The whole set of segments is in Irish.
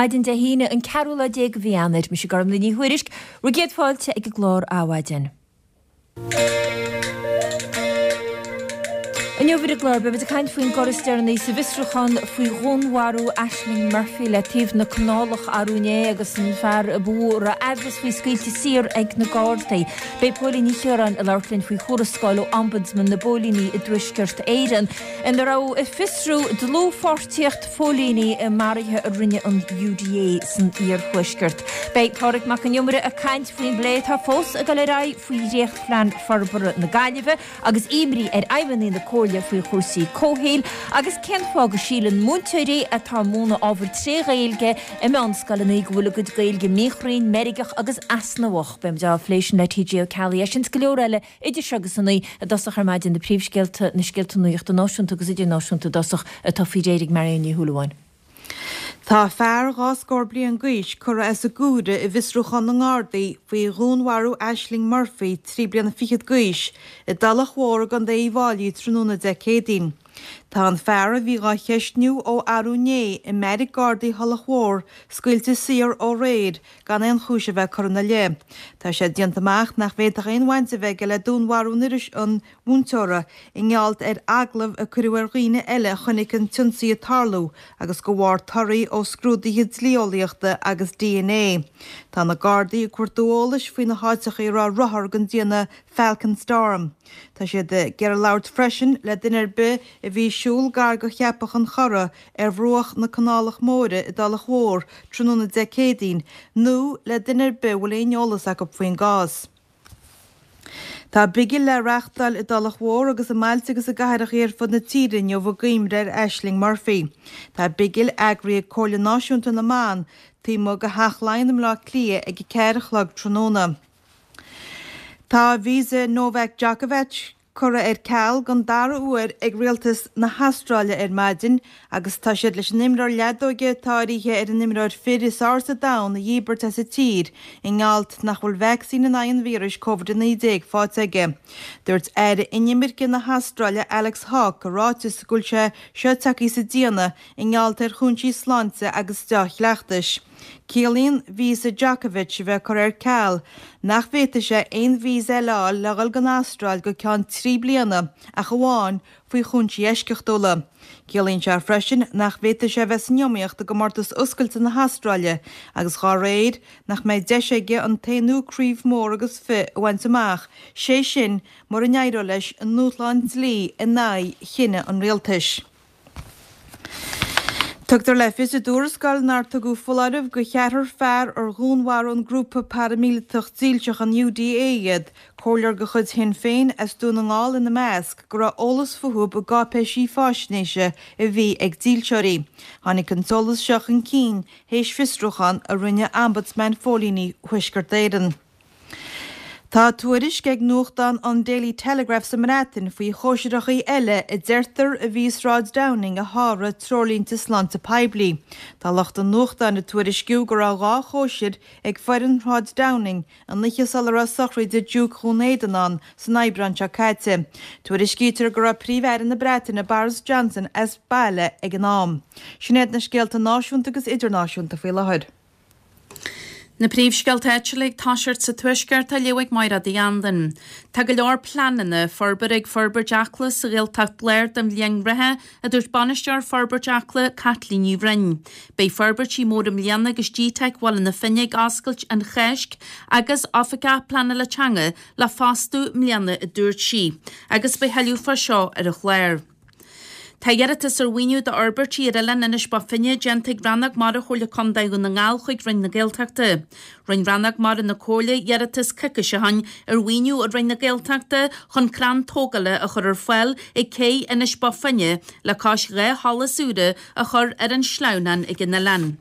Maidin Dé hAoine, an ceathrú lá déag de mhí Eanáir. Mise Gormlaith Ní Thuairisg, bhur gcéad fáilte ag an gclár Adhmhaidin. Inniu ar an gclár, beimid ag caint faoin gcor is deireanaí sa bhfiosrúchán faoi dhúnmharú Ashling Murphy le taobh na canálach arú inné agus an fear a ba mhó a raibh aimhreas faoi scaoilte saor ag na Gardaí. Beidh Póilín Ní Chiaráin ag labhairt linn faoi thuarascáil ó Ombudsman na bPóilíní i dTuaisceart Éireann ina raibh ag fiosrú dlúthpháirtíocht phóilíní i maruithe a rinne an UDA san iarthuaisceart. Beidh Pádraig Mac Con Iomaire ag caint faoin bplé atá fós ag dul ar aghaidh faoi dhréachtphlean forbartha na Gaillimhe agus imní ar fheidhmeannaigh na Comhairle faoi chúrsaí comhshaoil agus cén fáth go síleann múinteoirí atá ag múineadh ábhair tré Ghaeilge i meánscoileanna go bhfuil a gcuid Gaeilge míchruinn, meirgeach agus easnamhach. Beimid á phlé sin le TJ Ó Ceallaigh. É sin is go leor eile Idir seo agus a naoi i dtosach ar maidin, na príomhscéalta, na scéalta nuachta náisiúnta agus idirnáisiúnta i dtosach, atá faoi réir ag Marion Ní Shúilleabháin. Tá fear dhá scór bliain d'aois curtha as an gcomhaireamh i bhfiosrúchán na nGardaí faoi dhúnmharú Ashling Murphy, 23 bliana d'aois, i dTulach Mhór i gContae Uíbh Fháilí tráthnóna Dé Céadaoin. Tá an fear a bhí dhá cheistniú ó arú inné i mbeairic Gardaí Thulach Mhór scaoilte saor ó aréir gan aon chúis a bheith curtha ina leith. Tá sé déanta amach nach bhféadfadh aon bhaint a bheith aige le dúnmharú an mhúinteora i ngeall ar agallaimh a cuireadh ar dhaoine eile a chonaic an t-ionsaí ag tarlú agus de bharr torthaí ó scrúduithe dlí-eolaíochta agus dna. Tá na Gardaí ag cuartú eolais faoi na háiteacha a raibh rothar den déanamh Falcon Storm. Tá siad ag iarraidh labhairt freisin le duine ar bith a bhí ag siúl gar go Cheapach an Chora ar bhruach na Canálach Móire i dTulach Mhór tráthnóna Dé Céadaoin nó le duine ar bith a bhfuil aon eolas acu faoin gcás. Tá bigil le reachtáil i dTulach Mhór agus i mbailte agus i gcathracha ar fud na tíre inniu i gcuimhne ar Ashling Murphy. Tá bigil eagraithe ag Comhairle Náisiúnta na mBan taobh amuigh de Theach Laighean i mBleá Cliath ag 4 a chlog tráthnóna. Tá visa Novak Djokovic curtha ar ceal don dara huair ag rialtas na hAstráile ar maidin agus tá siad leis an imreoir leadóige atá áirithe ar an imreoir fir is fhearr sa domhan a dhíbirt as an tír i ngeall nach bhfuil vacsaín in aghaidh an víris Covid-19 faighte aige. Dúirt Aire Inimirce na hAstráile Alex Hawke i ráiteas go bhfuil sé seo tagtha sa déanamh i ngeall ar chúinsí sláinte agus deá-chleachtais. Ciallaíonn víosa Djokovic a bheith curtha ar ceal nach bhféadfaidh sé aon víosa eile a fháil le dhul don Astráil go ceann 3 bliana ach amháin faoi chúinsí eisceachtúla. Ciallaíonn sé freisin nach bhféadfaidh sé a bheith san iomaíocht i gcomórtas Oscailte na hAstráile agus dhá réir nach mbeidh deis aige an t-aonú craobh mór agus fi a bhaint amach, sé sin mura n-éireoidh leis i ndúshlán dlí in aghaidh chinneadh an rialtais. Tugtar le fios i dtuarascáil nár tugadh foláireamh go cheathrar fear ar dhúnmharaigh an grúpa paraimíleatach dílseach an UDA iad, comhairleoir de chuid Shinn Féin as Dún na nGall ina measc, go raibh eolas fúthu i gcáipéisí faisnéise a bhí ag dílseoirí. Tháinig an t-eolas seo chun cinn théis fiosrúchán a rinne Ombudsman Phóilíní Thuaisceart Éireann. Tá tuairisc ag nuachtán an Daily Telegraph sa mBreatain faoi chóisireachaí eile a deirtear a bhí i Sráid Downing a sháraigh treoirlínte sláinte poiblí. Tá lucht an nuachtáin ag tuairisciú go raibh 2 chóisir ag foireann Shráid Downing an oíche sula raibh sochraide Diúc Dhún Éideann ann san Aibreán seo caite. Tuairiscítear go raibh Príomh-Aire na Breataine Boris Johnson as baile ag an am. Sin iad na scéalta náisiúnta agus idirnáisiúnta faoi láthair. Na príomhscéalta áitiúla ag toiseacht sa Tuaisceart á léamh ag Máiréad Uí Anluain. Tá go leor pleananna forbartha ag Forbairt Acla sa Ghaeltacht Láir don bhliain reatha, a dúirt Bainisteoir Forbairt Acla, Caitlín Ní Bhroin. Beidh forbairtí móra i mbliana agus GTeic Bhaile na Finne ag oscailt an Cháisc agus Oifigeach Pleanála Teanga le fostú i mbliana, a dúirt sí. Agus beidh thuilleadh fá seo ar an chlár. Tá iarratas ar mhaoiniú d'fhorbairtí ar oileán Inis Bó Finne déanta ag Rannóg Mara Chomhairle Contae Dhún na nGall chuig Roinn na Gaeltachta. Rinne Rannóg Mara na Comhairle iarratas coicís ó shin ar mhaoiniú ó Roinn na Gaeltachta chun crann tógála a chur ar fáil ag cé Inis Bó Finne le cois 2 sholas úra a chur ar an sleamhnán ag an oileán.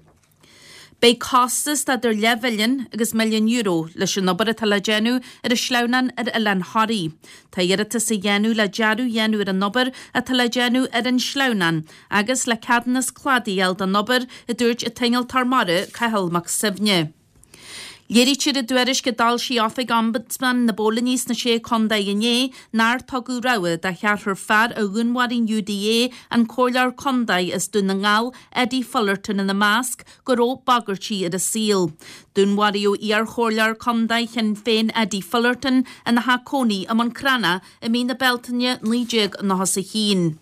Beidh costas d'idir leathmhilliún agus €1 milliún leis an obair atá le déanamh ar an sleamhnán ar Oileán Thoraí. Tá iarratas á dhéanamh le dearadh a dhéanamh ar an obair atá le déanamh ar an sleamhnán agus le ceadúnas cladaigh a fháil don obair, a dúirt an t-innealtóir mara Cathal Mac Suibhne. Léirítear i dtuairisc a d'fhoilsigh Oifig Ombudsman na bPóilíní sna Sé Chontae inné nár tugadh rabhadh do cheathrar fear a dhúnmharaigh an UDA, an Comhairleoir Contae as Dún na nGall, Eddie Fullerton ina measc, go raibh bagairtí ar a saol. Dúnmharaíodh iar-chomhairleoir contae Shinn Féin Eddie Fullerton ina theach cónaí i mBun Cranncha i mí na Bealtaine 1991.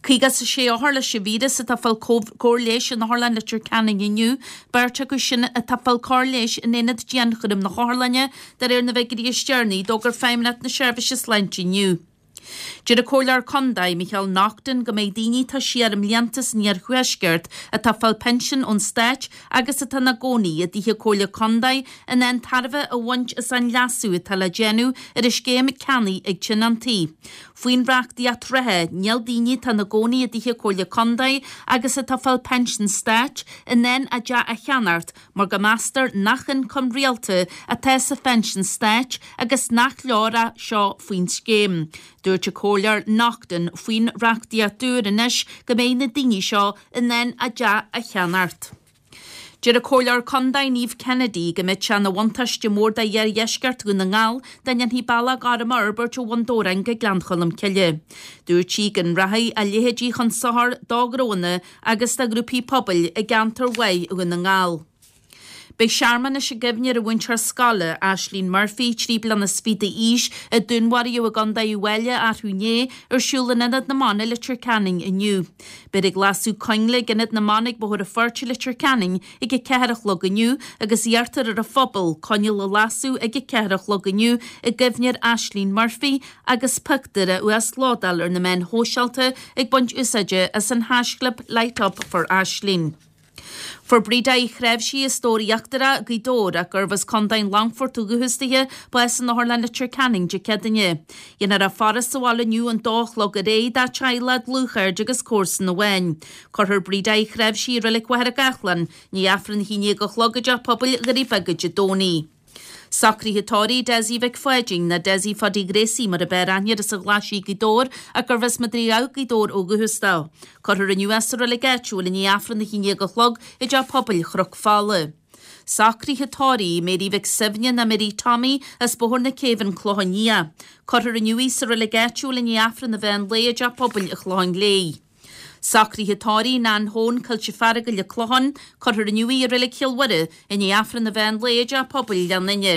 56 othar leis an víreas atá ag fáil cóir leighis in Otharlann Leitir Ceanainn inniu, beirt acu sin atá ag fáil cóir leighis in aonad dianchúraim na hotharlainne, de réir na bhfigiúirí is deireanaí a d'fhógair Feidhmeannacht na Seirbhíse Sláinte inniu. Deir an Comhairleoir Contae, Micheál Naughton, go mbeidh daoine atá siar i mblianta san iarthuaisceart atá ag fáil pinsean ón Stát agus atá ina gcónaí i dtithe Comhairle Contae in ann tairbhe a bhaint as an leasú atá le déanamh ar an scéim ceannaigh ag tionóntaí. Faoin reachtaíocht reatha, níl daoine atá ina gcónaí i dtithe Comhairle Contae agus atá ag fáil pinsean Stáit in ann a dteach a cheannacht mar go meastar nach ioncam rialta atá sa phinsean stáit agus nach leor é seo faoin scéim. Dúirt an Comhairleoir Naughton faoin reachtaíocht úr anois go mbeidh na daoine seo in ann a dteach a cheannacht. Deir an Comhairleoir Contae Niamh Kennedy go mbeadh sé ina bhuntáiste mór do iardheisceart Dhún na nGall dá ndéanfaí bealach gorm a fhorbairt ó Bhun Dobhráin go Gleann Cholm Cille. Dúirt sí go rachadh a leithéidí chun sochair do ghnóanna agus do ghrúpaí pobail i gceantar mhaith Dhún na nGall. Beidh searmanas i gcuimhne ar an mhúinteoir scoile, Ashling Murphy, 23 bliana d'aois, a dúnmharaíodh i gContae Uíbh Fhailí arú inné, ar siúl in Ionad na mBan i Leitir Ceanainn inniu. Beifear ag lasadh coinnle ag Ionad na mBan ag Bóthar an Phoirt i Leitir Ceanainn ag a 4 a chlog inniu agus iarrtar ar an phobal coinneal a lasadh ag a 4 a chlog inniu i gcuimhne ar Ashling Murphy agus pictiúr a uaslódáil ar na meáin shóisialta ag baint úsáide as an haischlib LightUpForAshling. Fuair Breda Uí Chnáimhsí as Dobhar Íochtarach, Gaoth Dobhair, ach gurbh as Contae an Longfoirt ó dhúchas dithe, bás in Otharlann Leitir Ceanainn Dé Céadaoine. Dhéanfar a faire sa bhaile inniu ón dó a chlog ar aghaidh dá teaghlach, dlúthchairde agus comharsan amháin. Cuirfear Breda Uí Chnáimhsí i Reilig Mhachaire Gathlán i ndiaidh Aifreann a 11 a chlog i dTeach Pobail Dhoirí Beaga Dé Domhnaigh. Socruithe tórraimh Dessie Mhic Pháidín, nó Dessie Phaudie Ghracie mar a b'fhearr aithne air as an Ghlaisigh Gaoth Dobhair ach gurbh as Madraí Dhamh Gaoth Dobhair ó dhúchas dó. Cuirfear inniu é sa reilig áitiúil i ndiaidh Aifreann a 11 a chlog i dTeach Pobail Chnoc Fola. Socruithe tórraimh Mary Mhic Suibhne nó Mary Tommy as Bóthar na Céibhe An Clochán Liath. Cuirfear inniu í sa reilig áitiúil i ndiaidh Aifreann an mheán lae i dTeach Pobail an Chlocháin Léith. Socruithe tórraimh Nan Hone, Coillte Feargail, An Clochán, Cuirfear inniu í i Reilig Chill Mhuire i ndiaidh Aifreann an mheán lae i dTeach Pobail Ghleann Fhinne.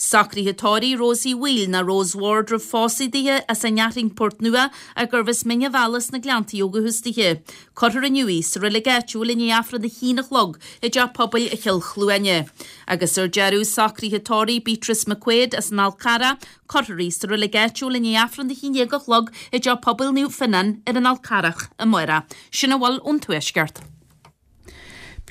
Socruithe tórraimh Rosie Wheel ná Rose Ward roimh phósadh dithe as an Fhearthainn Port Nua ach gurbh as Mín an Bhealaigh sna Gleanntaí ó dhúchas dithe. Cuirfear inniu í sa reilig áitiúil i ndiaidh Aifreann a haon a chlog i dTeach Pobail Chill Chluaine. Agus ar deireadh, socruithe tórraimh Beatrice McQuaid as an Fhál Carrach, Cuirfear í sa reilig áitiúil i ndiaidh Aifreann a 11 a chlog i dTeach Pobail Naomh Fionnán ar an Fhál Carrach amárach. Sin a bhfuil ón Tuaisceart.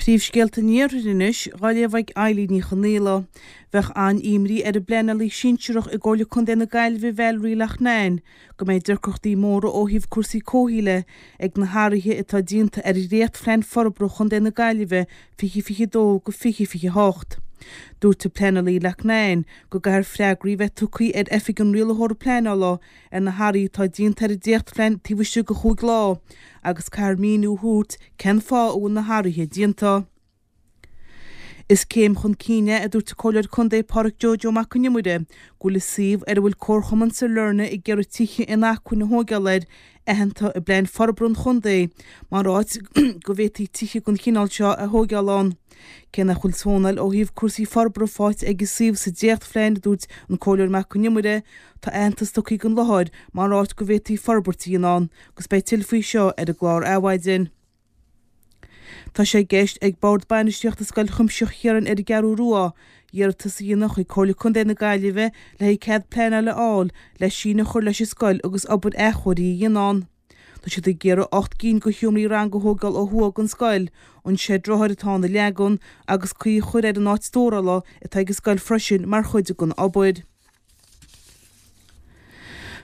Príomhscéalta an Iarthair anois, dhá léamh ag Eilín Ní Chonaola. Bheadh an-imní ar an bpleanálaí sinsearach i gComhairle Contae na Gaillimhe Valerie Loughnane go mbeidh deacrachtaí móra ó thaobh cúrsaí comhshaoil de ag na hathruithe atá déanta ar Dhréachtphlean Forbartha Chontae na Gaillimhe 2022-2028. Dúirt an pleanálaí Loughnane go gcaithfear freagraí a bheith tugtha ar Oifig an Rialaitheora Pleanála ar na hathruithe atá déanta ar an dréachtphlean taobh istigh de chúig lá agus caithfear míniú a thabhairt cén fáth a bhfuil na hathruithe déanta. Is céim chun cinn é, a dúirt an Comhairleoir Contae Pádraic Joe Joe Mac Con Iomaire, go bhfuil an suíomh ar a bhfuil Comharchumann Sailearna ag iarraidh tithe inacmhainne a thóigeáil air aitheanta i bPlean Forbartha an Chontae mar áit go bhféadfaí tithe den chineál seo a thóigeáil ann. Cé nach bhfuil zónáil ó thaobh cúrsaí forbartha faighte ag an suíomh sa dréachtphlean, a dúirt an Comhairleoir Mac Con Iomaire, tá aitheantas tugtha don láthair mar áit go bhféadfaí forbairt a dhéanamh ann agus beidh tuilleadh faoi seo ar an gclár Adhmhaidin. Tá sé i gceist ag Bord Bainistíochta Scoil Chuimsitheach Chiaráin ar an gCeathrú Rua iarratas a dhéanamh chuig Comhairle Contae na Gaillimhe le haghaidh cead pleanála a fháil le síneadh a chur leis an scoil agus obair athchóirithe a dhéanamh ann. Tá siad ag iarraidh 8 gcinn de sheomraí ranga a thógáil ó thuaidh den scoil, an seid rothair atá ann a leagan agus caoi a chur ar an áit stórála atá ag an scoil freisin mar chuid den obair.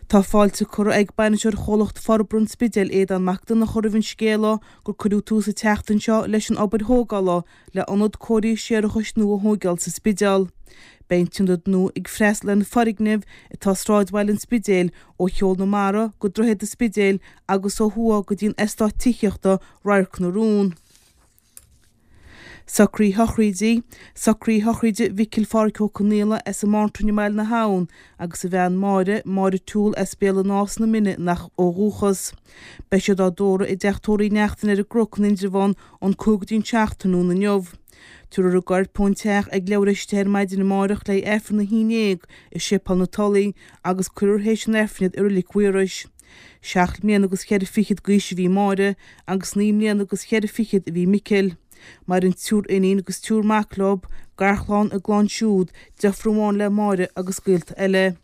Tá fáilte curtha ag Bainisteoir Chomhlacht Forbartha an Spidéil, Aodán Mac Donncha roimh an scéala gur cuireadh tús an tseachtain seo leis an obair thógála le ionad cóirithe séarachais nua a thóigeáil sa Spidéal. Beidh an t-ionad nua ag freastal ar na foirgnimh atá i sráidbhaile an Spidéil ó Cheol na Mara go Droichead an Spidéil agus ó thuaidh go dtí an eastát tithíochta Radharc na Rún. Socruithe sochraide, Socruithe sochraide Mhicil Phádhraic Ó Conaola as an Mántrainn i mBaile na hAbhann agus a bhean Máire, Máire Toole as Béal an Átha sna Mine ó dhúchas. Beidh siad á dtórramh i dteach tórraimh Uí Neachtain ar an gCnoc in Indreabhán ón 5 go dtí an 7 tráthnóna inniu. Tabharfar a gcoirp ón teach ag leathuair théis 10 ar maidin amárach le haghaidh Aifreann a 11 i Séipéal na Tulaí agus cuirfear théis an Aifrinn iad i Reilig Mhaorais. Seacht mbliana agus cheithre fichid d'aois a bhí Máire agus naoi mbliana agus cheithre fichid a bhí Micil. Maireann triúr iníon agus triúr mac leo, garchlann, a gclann siúd, deirfiúr amháin le Máire agus gaolta eile.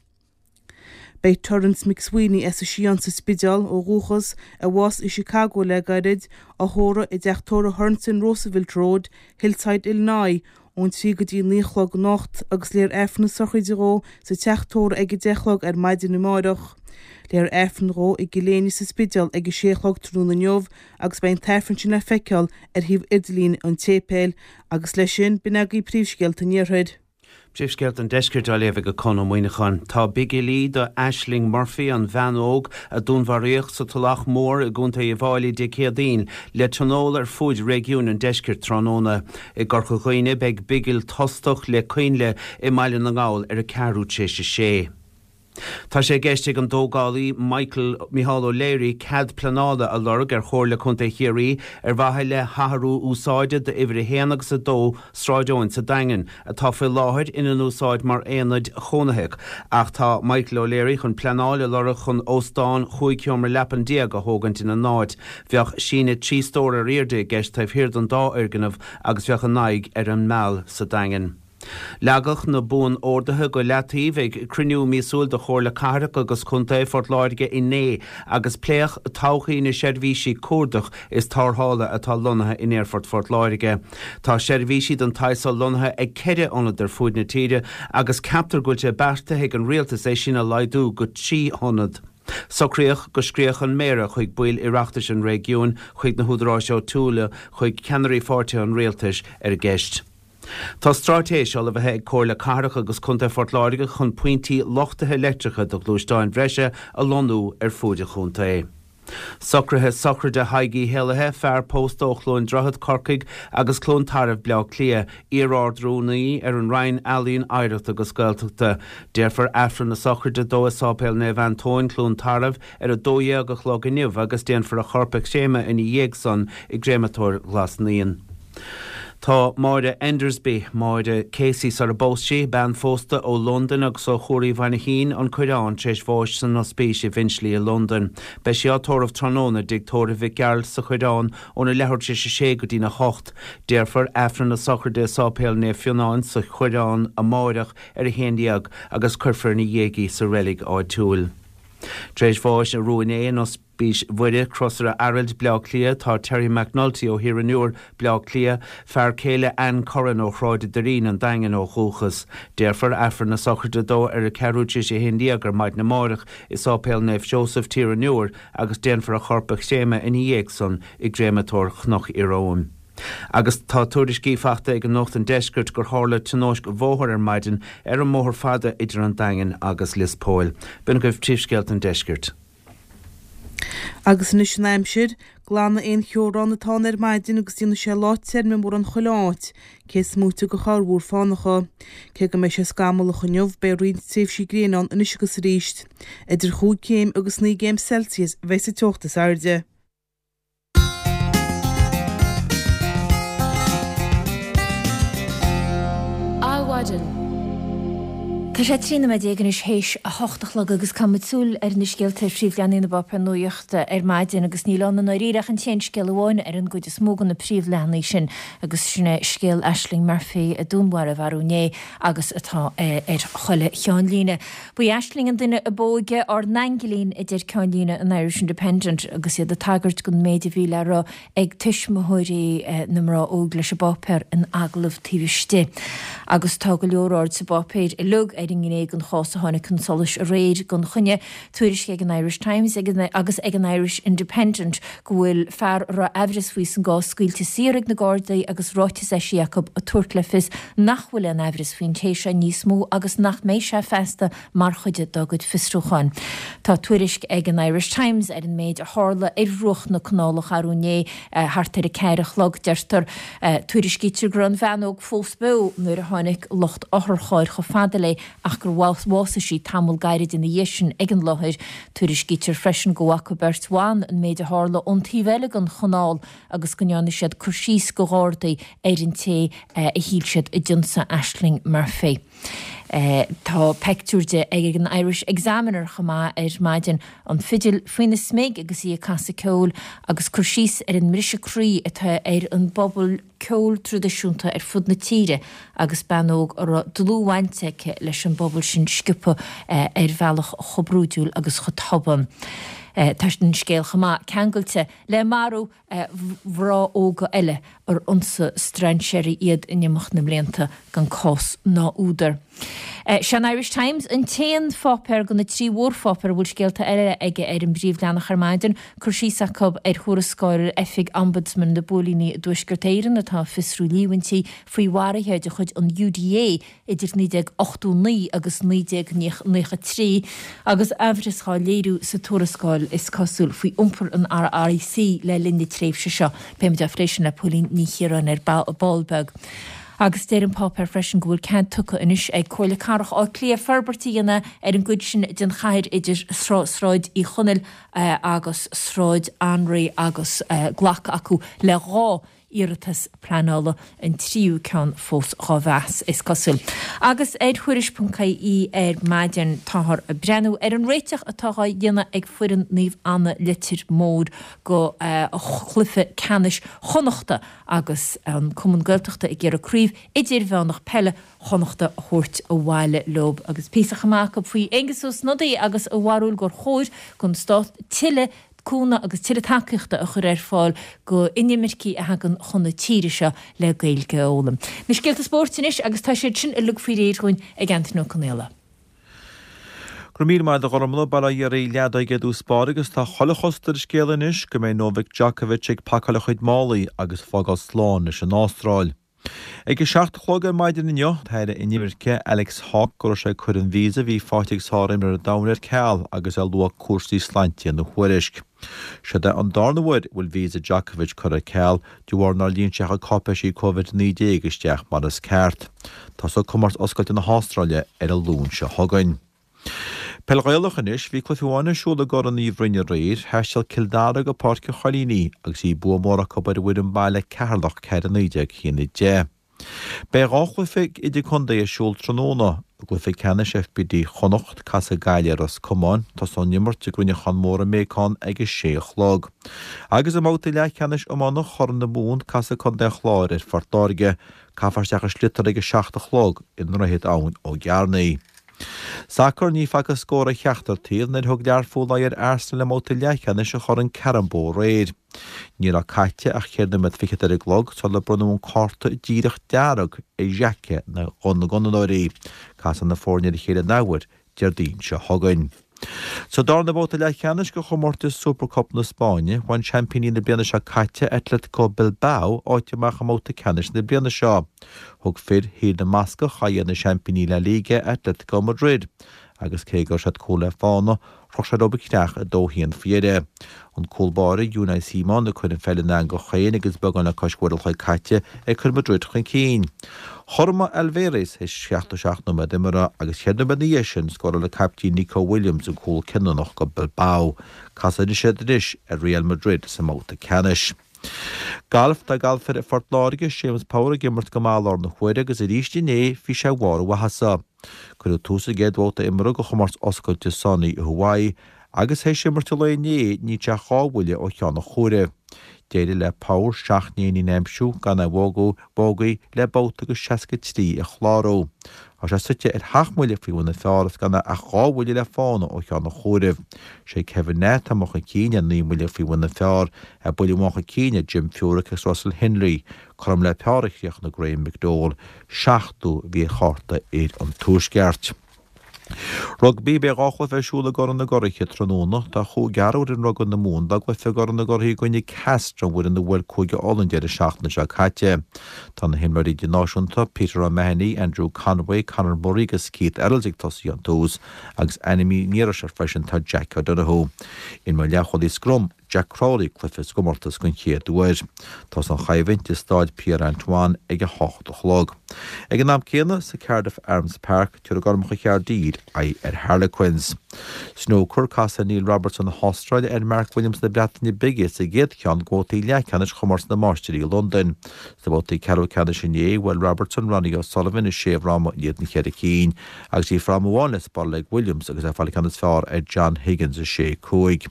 Beidh Terence McSweeney as an Sián sa Spidéal ó dhúchas, a bhásaigh i Chicago le gairid, á thórramh i dteach tórraimh Aherne in Roosevelt Road, Hillside, Illinois, ón 3 go dtí 9 a chlog anocht agus léifear Aifreann na sochraide dhó sa teach tórraimh ag 10 a chlog ar maidin amáireach. Léifear Aifreann dhó i gCill Éinne sa Spidéal ag 6 a chlog tráthnóna inniu agus beidh an tAifreann sin le feiceáil ar shuíomh idirlín an tséipéil agus leis sin, b'in agaibh príomhscéalta an Iarthair. Príomhscéalta an Deiscirt á léamh ag Conn Ó Muíneacháin. Tá bigilí do Ashling Murphy, an bhean óg a dúnmharaíodh sa Tulach Mhór i gContae Uíbh Fháilí Dé Céadaoin, le tionól ar fuaid réigiúin an deiscirt tráthnóna. I gCorca Dhuibhne beidh bigil tostach le coinnle i mBaile na nGall ar a ceathrú tar éis a sé. Tá sé i gceist ag an dtógálaí Michael Micheál O'Leary cead pleanála a lorg ar Chomhairle Contae Chiarraí ar mhaithe le hathrú úsáide d'uimhir 1 agus 2 Sráid Eoin sa Daingean, atá faoi láthair ina n-úsáid mar aonaid chónaitheach. Ach tá Michael O'Leary chun pleanáil a lorg chun óstán chúig sheomra leapan déag a thógaint ina n-áit. Bheadh síneadh 3 stór ar airde i gceist taobh thiar den dá fhoirgneamh agus bheadh a n-aghaidh ar an Meal sa Daingean. Leagadh na buan-orduithe go leataobh ag cruinniú míosúil de Chomhairle Cathrach agus Contae Phort Láirge inné agus pléadh todhchaí na seirbhísí cuardach is tarrthála atá lonnaithe in Aerfort Phort Láirge. Tá seirbhísí den tsaghas so lonnaithe ag ceithre ionad ar fuaid na tíre agus ceaptar go bhfuil sé beartaithe ag an Rialtas é sin a laghdú go 3 hionad. Socraíodh go scríobhadh an Méara chuig baill Oireachtais an réigiúin, chuig na húdaráis áitiúla, chuig ceannairí pháirtithe an Rialtais ar an gceist. Tá straitéis ullmhaithe ag Comhairle Cathrach agus Contae Phort Láirge chun pointí luchtaithe leictreacha do ghluaisteáin bhreise a lonnú ar fuaid an chontae. Socruithe sochraide Thaidhg Uí hÉalaithe, fear pósta ó Chluain Droichead, Corcaigh, agus Cluain Tarbh, Bleá Cliath, iar-Ard-Rúnaí ar an Roinn Ealaíon, Oidhreachta agus Gaeltachta. Déarfar Aifreann na sochraide dó i Sáipéal Naomh Antóin, Cluain Tarbh, ar 12 a chlog inniu agus déanfar a chorp a chréamadh ina dhiaidh san i gCréamatóir Ghlas Naíon. Tá Máire Endersby, Máire Casey sar a bpós sí, bean phósta ó Londain agus ó Chuar Uí Mhainchín, An Coireán, tar éis bháis san ospís i bhFinchley i Londain. Beidh sí á tórramh tráthnóna i dtigh tórraimh Mhic Gearailt sa Choireán óna leathuair tar éis a sé go dtína hocht. Déarfar Aifreann na sochraide i Sáipéal Naomh Fionán sa Choireán amáireach ar a haon dhéag agus cuirfear ina dhiaidh í sa reilig áitiúil. Tar éis bháis arú inné in Ospís Mhuire, Crosaire Araild, Bleá Cliath, tá Terry McNulty ó Thír an Iúir, Bleá Cliath, fear céile Anne Curran ó Shráid a' Doirín, An Daingean ó dhúchas. Déarfar Aifreann na sochraide dó ar a ceathrú tar éis a haon dhéag ar maidin amárach i Sáipéal Naomh Seosamh, Tír an Iúir agus déanfar a chorp a chréamadh ina dhiaidh san i gCréamatóir Chnoc Ieróm. Agus tá tuairiscí faighte ag Nuacht an Deiscirt gur tharla tionóisc bhóthair ar maidin ar an mbóthar fada idir an Daingean agus Lios Póil. B'in agaibh príomhscéalta an Deiscirt. Agus anois an aimsir. Glanfaidh aon cheobhrán atá ann ar maidin agus déanfaidh sé lá tirim i mórán chuile áit, cé is móite de chorrmhúr fánacha. Cé go mbeidh sé scamallach inniu, beidh roinnt tréimhsí gréine ann anois agus arís. Idir chúig chéim agus naoi gcéim Celsius a bheidh sa teocht is airde. Adhmhaidin. Tá sé 13 nóiméad anois théis a hocht a chlog agus caithfidh muid súil ar na scéalta ar phríomhleathanaigh na bpáipéar nuachta ar maidin agus níl ann i ndáiríre ach an t-aon scéal amháin ar an gcuid is mó de na príomhleathanaigh sin agus sin é scéal Ashling Murphy a dúnmharaíodh arú inné agus atá ar chuile cheannlíne. Ba í Ashling an duine ab óige, ár n-aingilín, a deir ceannlíne an Irish Independent agus iad ag tagairt don méid a bhí le rá ag tuismitheoirí na mná óg leis an bpáipéar in agallamh taobh istigh. Agus tá go leor aird sa bpáipéar uilig ar. ar an ngné den chás a tháinig chun solais aréir gan choinne. Tuairisc ag an Irish Times agus ag an Irish Independent go bhfuil fear a raibh aimhreas faoi san gcás scaoilte saor ag na Gardaí agus ráiteas eisithe acu ag tabhairt le fios nach bhfuil aon aimhreas faoin té seo níos mó agus nach mbeidh sé feasta mar chuid dá gcuid fiosrúcháin. Tá tuairisc ag an Irish Times ar an méid a tharla ar bhruach na Canálach arú inné thart ar a ceathair a chlog, deirtear. Tuairiscítear go raibh an bhean óg fós beo nuair a tháinig lucht otharchairr chomh fada léi ach gur bhásaigh sí tamall gairid ina dhiaidh sin ag an láthair. Tuairiscítear freisin go bhfaca beirt bhan an méid a tharla ón taobh eile den chanáil agus go ndearna siad cur síos go Ghardaí ar an té a shíl siad a d'ionsaigh Ashling Murphy. Tá peictiúr di ag an Irish Examiner chomh maith ar maidin, an fidil faoina smig agus í ag casadh ceoil agus cur síos ar an mbriseadh croí atá ar an bpobal ceoil traidisiúnta ar fud na tíre agus bean óg a raibh dlúthbhaint aici leis an bpobal sin sciobtha ar bhealach chomh brúidiúil agus chomh tobann. Tá an scéal chomh maith ceangailte le marú mhná óga eile ar ionsaigh strainséirí iad in imeacht na mblianta gan cás ná údar. Sé an Irish Times an t-aon pháipéar de na trí mhórpháipéar a bhfuil scéalta eile aige ar an bpríomhleathanach ar maidin. Cur síos acu ar thuarascáil Oifig Ombudsman na bPóilíní i dTuaisceart Éireann atá ag fiosrú líomhaintí faoi mharuithe de chuid an UDA idir 1989 agus 1993 agus aimhreas dhá léiriú sa tuarascáil, is cosúil, faoi iompar an RIC le linn na tréimhse seo. Beidh muid á phlé sin le Póilín Ní Chiaráin ar ball beag. Agus deir an páipéar freisin go bhfuil cead tugtha anois ag Comhairle Cathrach Átha Cliath forbairt a dhéanamh ar an gcuid sin den chathair idir Sráid Uí Chonaill agus Sráid Anraí agus glactha acu le 2 iarratas pleanála, an tríú ceann fós dhá mheas, is cosúil. Agus ar Thuairisc ponc ie ar maidin táthar ag breathnú ar an réiteach atá dhá dhéanamh ag foireann Naomh Anna Leitir Móir go chluiche ceannais Chonnachta agus an Cumann Gaeltachta ag iarraidh craobh idirmheánach peile Chonnachta a thabhairt abhaile leo. Agus píosa chomh maith acu faoi Aengus Ó Snodaigh agus a bharúil gur chóir don stát tuilleadh cúnamh agus tuilleadh tacaíochta a chur ar fáil go inimircigh a thagann chun na tíre seo le Gaeilge a fhoghlaim. Na scéalta spóirt anois agus tá siad sin uilig faoi réir dhúinn ag Anthony Ó Conaola. Go raibh míle maith agat a Ghormfhlaith, bail ó Dhia ar an leadóg i dtús báire agus tá chuile chosúlacht ar an scéal anois go mbeidh Novak Djokovic ag pacáil a chuid málaí agus fágáil slán leis an Astráil. Ag a 7 a chlog ar maidin inniu, an tAire Inimirce, Alex Hawke, go raibh sé ag cur an víosa a bhí faighte ag sárimreoir an domhain ar ceal agus é ag lua cúrsaí sláinte ina thuairisc. Seod é an darna huair a bhfuil víosa Djokovic curtha ar ceal de bharr nár líon sé a chuid cáipéisí Covid-19 isteach mar is ceart. Tosóidh Comórtas Oscailte na hAstráile ar an Luan seo chugainn. Peil Ghaelach anois, bhí cluiche amháin ar siúl i gCorn Uí Bhroin aréir, thaisteal Cill Dara go Páirc an Choilínigh agus bhí bua mór acu ar an bhfoireann baile Ceatharlach 4 19 1 10. Beidh 2 chluiche idirchontae ar siúl tráthnóna. I gcluiche ceannais FBD Chonnacht, casfaidh Gaillimh ar Ros Comáin, tosóidh an imirt i gCruinneachán Mór i mBéacán ag a sé a chlog. Agus i mbabhta leathcheannais iomána Chorn na Mumhan, casfaidh Contae an Chláir ar Phort Láirge. Caithfear isteach an sliotar ag a 7 a chlog i nDroichead Abhainn Ó gCearnaigh. Sacar, Ní facthas scór ar cheachtar taobh nuair a thug Learpholl aghaidh ar Arsenal i mbabhta leathcheannais an Choirn Carabao aréir. Ní raibh caite ach cheithre nóiméad fichead ar an gclog sular bronnadh an cárta díreach dearg ar Xhaka na gCuanadóirí. Casfaidh na foirne ar a chéile an athuair Déardaoin seo chugainn. Sa darna babhta leathcheannais de chomórtas Super Cup na Spáinne, bhain seaimpíní na bliana seo caite, Atletico Bilbao, áit amach i mbabhta ceannais na bliana seo. Thug fir Thír na mBascach aghaidh ar na seaimpíní La Liga, Atletico Madrid, agus cé go raibh siad cúl le fána, chroch sé leo an creach 2-1 faoi dheireadh. An cúl báire, Unai Simon, ag cur an pheil ina eangach féin agus beagán le cois uair an chloig caite ag cur Madrid chun cinn. Chothromaigh Alvarez théis 77 nóiméad imeartha agus cheithre nóiméad ina dhiaidh sin scóráil an caiptín Nico Williams an cúl cinniúnach do Bilbao. Casfaidh siad anois ar Real Madrid sa mbabhta ceannais. Galf, Tá galfaire Phort Láirge, Séamus Power ag imirt go maith i láthair na huaire agus arís inné bhí sé i mbarr a mhaitheasa. Cuireadh tús an gcéad bhabhta imeartha de chomórtas oscailte Sony i Hawaii agus théis imirt an lae inné níl sé ach 2 bhuille ó cheann an chomhairimh. D'éirigh le Power 7 n-éinín a aimsiú gan aon bhógaí le babhta agus 63 a chlárú. Tá sé suite ar sheacht mbuille faoi bhun an phar is gan ach 2 bhuille le fána ó cheann an chomhairimh. Sé Kevin Na atá amuigh chun cinn ar 9 mbuille faoi bhun an phar, é buille amháin chun cinn ar Jim Furyk agus Russell Henley. Cothrom le par a chríochnaigh Graham McDowell, seachtú a bhí ar chárta fhir an Tuaisceart. Rugbaí, Beidh 2 chluiche ar siúl i gCorn na gCuraithe tráthnóna. Tá cúigear ó fhoireann rugbaí na Mumhan dá gcluiche i gCorn na gCuraithe i gcoinne Castres, an bhfoireann a bhuail Cúige Uladh an deireadh seachtaine seo caite. Tá na himreoirí idirnáisiúnta Peter O'Mahony, Andrew Conway, Conor Murray agus Keith Earls ag tosaí ón tús agus ainmnithe an iarraidh seo freisin tá Jack O'Donoghue. Imreoidh leathchúlaí scrum. Jack Crowley cluiche sa gcomórtas den chéad uair. Tosóidh an choimhlint i Stáid Pierre Antoine ag 8 a chlog. Ag an am céanna, sa Cardiff Arms Park, tabharfaidh Gormacha Chaerdydd aghaidh ar Harlequins. Snúcar, Casfaidh Neil Robertson na hAstráile ar Mark Williams na Breataine Bige sa gcéad cheann de bhabhtaí leathcheannais Chomórtas na Máistirí i Londain. Sna babhtaí ceathrú ceannais inné, bhuail Robertson Ronnie O'Sullivan i sé fhráma in éadan cheithre cinn. Agus bhí fráma amháin le spáráil ag Williams agus é ag fáil an ceann is fearr ar John Higgins 6, 5.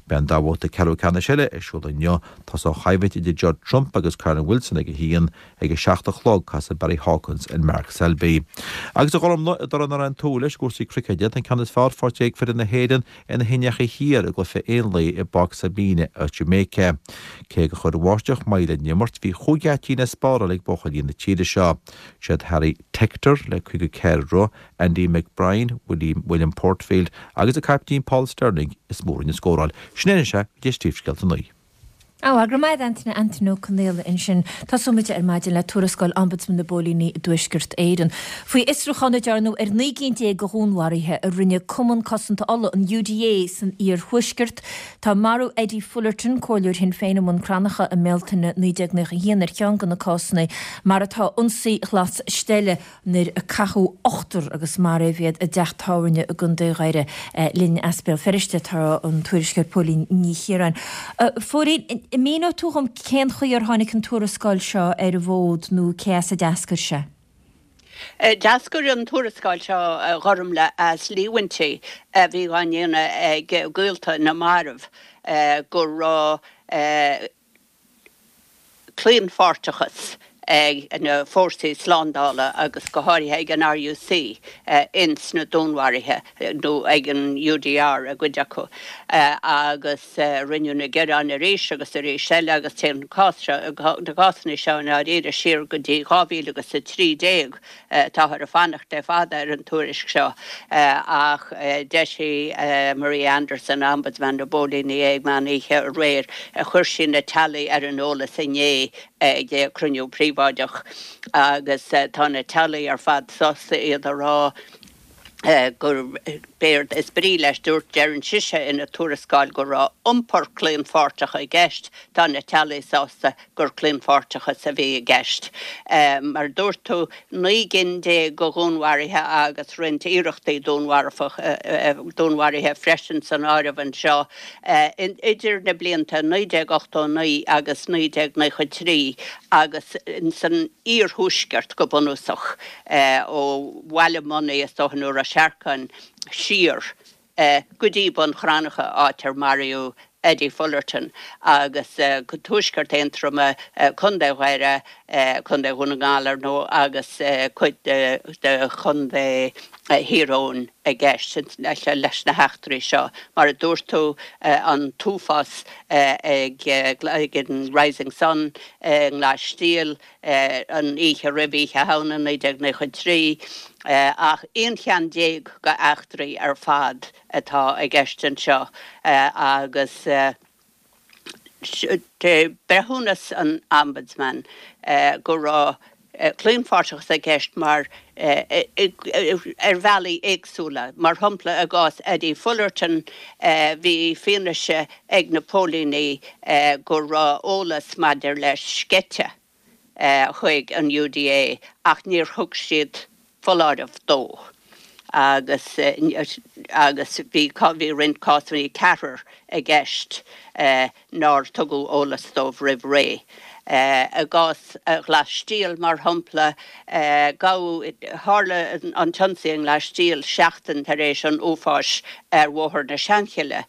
Beidh an dá bhabhta ceathrú ceannais eile ar siúl inniu. Tosóidh an choimhlint idir Judd Trump agus Kyren Wilson ag 1. Ag 7 a chlog casfaidh Barry Hawkins ar Mark Selby. Agus a Ghormlaith, i dtoradh nár aon tú leis i gcúrsaí cruicéid, tá an ceann is fearr faighte ag foireann na hÉireann ar na hIndiacha Thiar i gcluiche aon lae i bPáirc Sabina i Jamaica. Cé gur chuir an bháisteach moill ar an imirt, bhí chúig geaitín le spáráil ag buachaillí na tíre seo. Siad Harry Tector le 54 rith, Andy McBrine, William William Porterfield agus an caiptín Paul Stirling is mó a rinne scóráil. Sin é anois é go dtí Príomhscéalta 9. Á, go raibh maith agat Antaine, Antaine Ó Conaola ansin. Tosóidh muid ar maidin le tuarascáil Ombudsman na bPóilíní i dTuaisceart Éireann. Faoi fhiosrúchán a dearnadh ar 19 gcinn de dhúnmharuithe a rinne Cumann Cosanta Uladh, an UDA, san iarthuaisceart. Tá marú Eddie Fullerton, comhairleoir Shinn Féin i mBun Cranncha i mBealtaine 1991 ar cheann de na cásanna, mar atá ionsaí Ghlas Steille nuair a caitheadh ochtar agus maraíodh iad i dteach tábhairne i gContae Dhoire. Linn as Béal Feirste tá an tuairisceoir Póilín Ní Chiaráin. A Phóilín, an míneoidh tú dhom cén chaoi ar tháinig an tuarascáil seo ar an bhfód nó cé as a d'eascair sé? D'eascair an tuarascáil seo, a Ghormlaith, as líomhaintí a bhí á ndéanamh ag gaolta na marbh go raibh claonpháirteachas ag na fórsaí slándála agus go háirithe ag an RUC ins na dúnmharuithe, nó ag an UDR i gcuid acu, agus rinneadh na gearáin arís agus arís eile agus téann an cás seo, na cásanna seo i ndáiríre siar go dtí 2013. Táthar ag fanacht le fada ar an tuairisc seo ach d'eisigh Maria Anderson, Ombudsman na bPóilíní é ag meán oíche aréir. Chuir sí na teaghlaigh ar an eolas inné ag cruinniú príobháideach agus tá na teaghlaigh ar fad sásta iad a rá gur b'éard is brí leis, dúirt, deireann sise ina tuarascáil go raibh iompar claonpháirteach i gceist, tá na teaghlaigh sásta gur claonpháirteachas a bhí i gceist. Mar a dúirt tú, 19 gcinn de dhúnmharuithe agus roinnt iarrachtaí dúnmharaithe freisin san áireamh anseo idir na blianta 1989 agus 1993 agus san iarthuaisceart go bunúsach, ó Bhaile Monaidh is dócha nó Ros Earcáin siar go dtí Bun Cranncha, áit ar maraíodh Eddie Fullerton, agus go tuaisceart Aontroma, Contae Dhoire, Contae Dhún na nGall, ar ndóigh, agus cuid de Chontae Thír Eoghain i gceist leis na heachtraí seo. Mar a dúirt tú, an t-uafás ag an Rising Sun i nGlas Stiall, an oíche roimh Oíche Shamhna 1993, ach 11 cheann d'eachtraí ar fad atá i gceist anseo agus breithiúnas an Ombudsman go raibh claonpháirteachas i gceist mar ar bhealaí éagsúla. Mar shampla, i gcás Eddie Fullerton bhí fianaise ag na póilíní go raibh eolas maidir leis sceite chuig an UDA ach níor thug siad foláireamh dó agus agus bhí bhí roinnt cásanna, ceathrar i gceist nár tugadh eolas dóibh roimh ré. I gcás Ghlas Stiall, mar shampla, gabhadh, tharla an t-ionsaí i nGlas Stiall seachtain tar éis an uafáis ar Bhóthar na Seanchille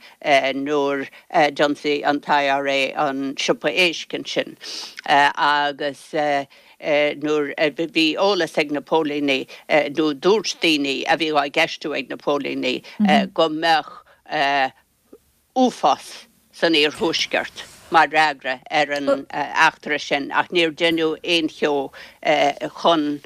nuair a d'ionsaigh an t-IRA an siopa éisc ansin agus nuair a bhí eolas ag na póilíní nó dúirt daoine a bhí á gceistiú ag na póilíní go mbeadh uafás san iarthuaisceart mar fhreagra ar an eachtra sin ach níor deineadh aon cheo chun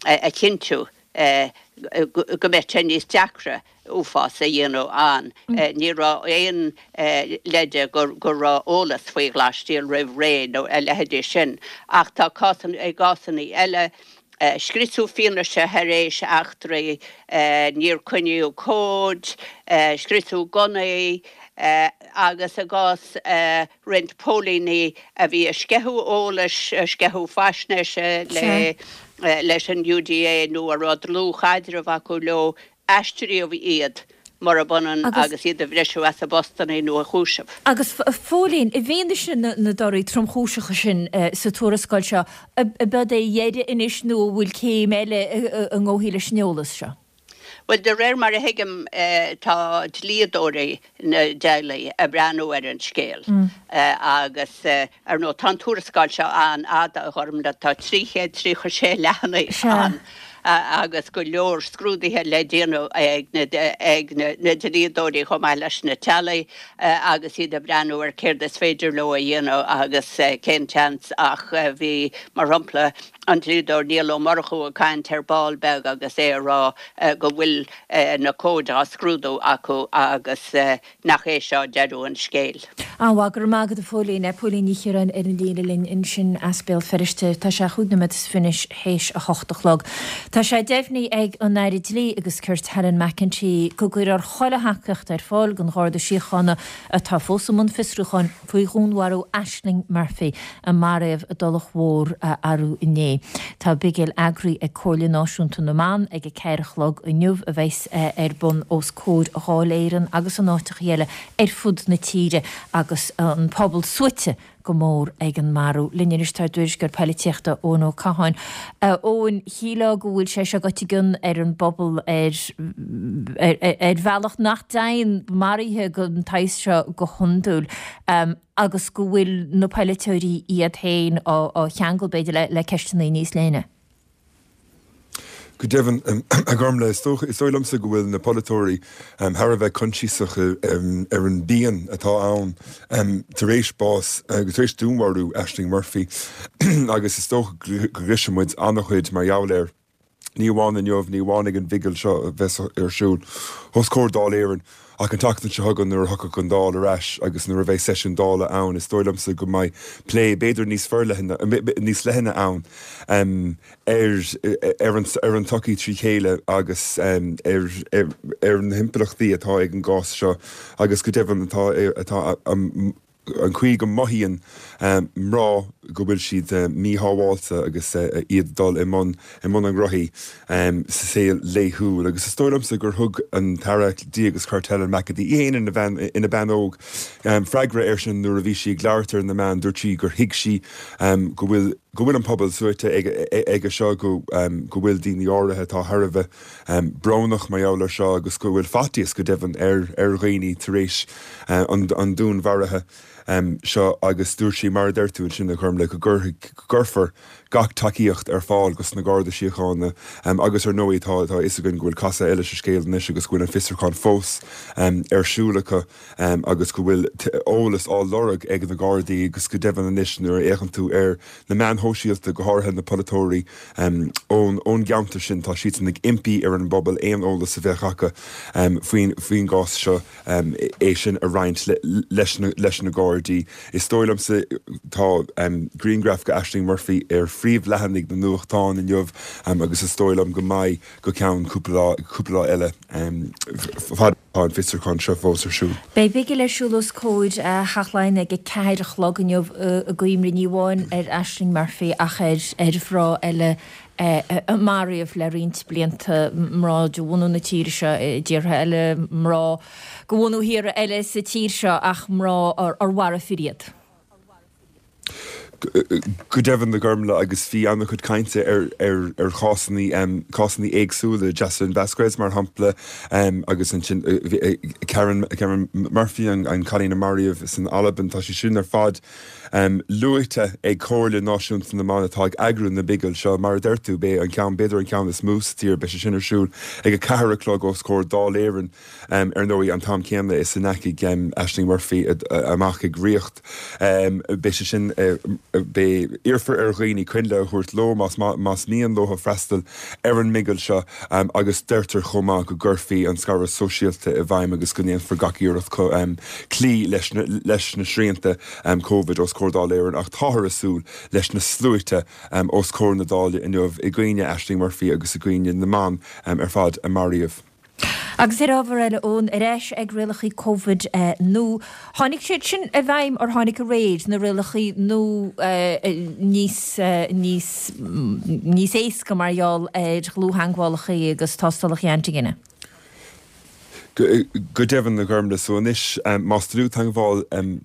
a chinntiú. go mbeadh sé níos deacra uafás a dhéanamh ann. Ní raibh aon leide go raibh eolas faoi ghlasstiall roimh ré nó a leithéidí sin. Ach tá cásanna, i gcásanna eile, scriosadh fianaise thar éis eachtraí, níor coinníodh comhaid, scriosadh gunnaí agus i gcás roinnt póilíní a bhí ag sceitheadh eolais, ag sceitheadh faisnéise leis an UDA nó a raibh dlúthchaidreamh acu leo, Aistríodh iad, murab ionann agus iad a bhriseadh as a bpostanna nó a chúiseamh. Agus a Phóilín, i bhfianaise na dtorthaí tromchúiseacha sin sa tuarascáil seo, ab é a dheireadh anois nó an bhfuil céim eile a ngabhfaí leis an eolas seo? Bhuel, de réir mar a thuigim, tá dlíodóirí na dteaghlaigh ag breathnú ar an scéal agus, ar ndóigh, tá an tuarascáil seo an-fhada, a Ghormfhlaith, tá 336 leathanaigh ann agus go leor scrúduithe le déanamh ag na dlíodóirí chomh maith leis na teaghlaigh agus iad ag breathnú ar céard is féidir leo a dhéanamh agus cén tseans ach bhí, mar shampla, an dlíodóir Niall Ó Murchú ag caint ar ball beag agus é ag rá go bhfuil na comhaid á scrúdú acu agus nach é seo deireadh an scéil. An-mhaith, go raibh maith agat a Phóilín. Póilín Ní Chiaráin ar an líne linn ansin as Béal Feirste. Tá sé chúig nóiméad is fiche théis a hocht a chlog. Tá sé deimhnithe ag an Aire Dlí agus Cirt Helen McEntee go gcuirfear chuile thacaíocht ar fáil don Gharda Síochána atá fós i mbun fiosrúcháin faoi dhúnmharú Ashling Murphy a maraíodh i dTulach Mhór arú inné. Tá bigil eagraithe ag Comhairle Náisiúnta na mBan ag a ceathair a chlog inniu a bheas ar bun os comhair Dháil Éireann agus in áiteacha eile ar fud na tíre agus an pobal suaite go mór ag an marú. Linn anois tá ár dtuairisceoir poilitíochta Eoin Ó Catháin. A Eoin, shílfeá go bhfuil sé seo goite i gcion ar an bpobal ar ar bhealach nach dtéann maruithe den tsaghas seo go hiondúil agus go bhfuil na poiliteoirí iad féin á cheangal, b'fhéidir, le ceisteanna níos leithne. Go deimhin, a Ghormfhlaith, is dócha, is dóigh liomsa go bhfuil na polaiteoirí thar a bheith coinsiasach ar an bpian atá ann tar éis bás, tar éis dúnmharú Ashling Murphy agus is dócha go gcloisfidh muid an-chuid mar gheall air, ní amháin inniu, ní amháin ag an bhigil seo a bheas ar siúl os comhair Dáil Éireann. Ach an tseachtain seo chugainn nuair a thiocfaidh an Dáil ar ais agus nuair a bheidh seisiún Dála ann, is dóigh liomsa go mbeidh plé b'fhéidir níos forleithne, níos leithne ann ar ar an ar an tsochaí trí chéile agus ar ar na himpleachtaí atá ag an gcás seo agus go deimhin atá atá an chaoi go mothaíonn mná go bhfuil siad míshábháilte agus iad ag dul i mbun i mbun a ngnóthaí sa saol laethúil. Agus is dóigh liomsa gur thug an tAire Dlí agus Cirt Helen McEntee, í féin ina bhean ina bean óg, freagra air sin nuair a bhí sí ag labhairt ar na meáin. Dúirt sí gur thuig sí go bhfuil go bhfuil an pobal suaite aige seo, go go bhfuil daoine áirithe atá thar a bheith brónach mar gheall air seo agus go bhfuil faitíos go deimhin ar ar dhaoine tar éis an an dúnmharaithe seo agus dúirt sí, mar a deir tú ansin a Ghormfhlaith, go gcuirfidh, go gcuirfear gach tacaíocht ar fáil dos na Garda Síochána agus ar ndóigh tá tá a fhios againn go bhfuil casadh eile sa scéal anois agus go bhfuil an fiosrúchán fós ar siúl acu. agus go bhfuil eolas á lorg ag na Gardaí agus go deimhin anois nuair a fhéachann tú ar na meáin shóisialta, go háirithe na polaiteoirí ón ón gceantar sin, tá siadsan ag impí ar an bpobal aon eolas a bheadh acu faoin faoin gcás seo é sin a roinnt leis na leis na Gardaí. Is dóigh liomsa, tá grianghraf de Ashling Murphy ar phríomhleathanaigh na nuachtán inniu agus is dóigh liom go mbeidh go ceann cúpla lá cúpla lá eile fad Tá an fiosrúchán seo fós ar siúl. Beidh bigil ar siúl os comhair Theach Laighean ag 4 a chlog inniu i gcuimhne ní amháin ar Ashling Murphy ach ar ar mhná eile a maraíodh le roinnt blianta, mná de bhunadh na tíre seo i dtíortha eile, mná de bhunadh thíortha eile sa tír seo ach mná ar mharaigh fir iad. Go deimhin, a Ghormfhlaith, agus bhí an-chuid cainte ar ar chásanna cásanna éagsúla, Jocelyn Vasquez mar shampla, agus ansin Karen Karen Murphy, an cailín a maraíodh san Albain, tá sé sin ar fad luaite ag Comhairle Náisiúnta na mBan atá ag eagrú na bigil seo. Mar a deir tú, beidh an ceann, b'fhéidir an ceann is mó sa tír, beidh sé sin ar siúl ag 4 a chlog os comhair Dáil Éireann. Ar ndóigh, an t-am céanna is a ndeachaigh Ashling Murphy amach ag ríocht, beidh sé sin. Beidh, iarrfar ar dhaoine coinnle a thabhairt leo más más mian leo freastal ar an mbigil seo agus deirtear chomh maith go gcuirfí an scaradh sóisialta i bhfeidhm agus go ndéanfar gach iarracht cloí leis na leis na srianta Covid os comhair Dáil Éireann ach táthar ag súil leis na sluaite os comhair na Dála inniu i gcuimhne Ashling Murphy agus i gcuimhne na mban ar fad a maraíodh. Agus ar ábhar eile, Eoin, ar ais ag rialacha Covid nua. Tháinig siad sin i bhfeidhm or tháinig aréir, na rialacha nua níos, níos, níos éasca mar gheall ar dhlúth-theagmhálacha agus tástálacha antaigine? Go deimhin, a Ghormlaith. So anois, más dlúth-theagmháil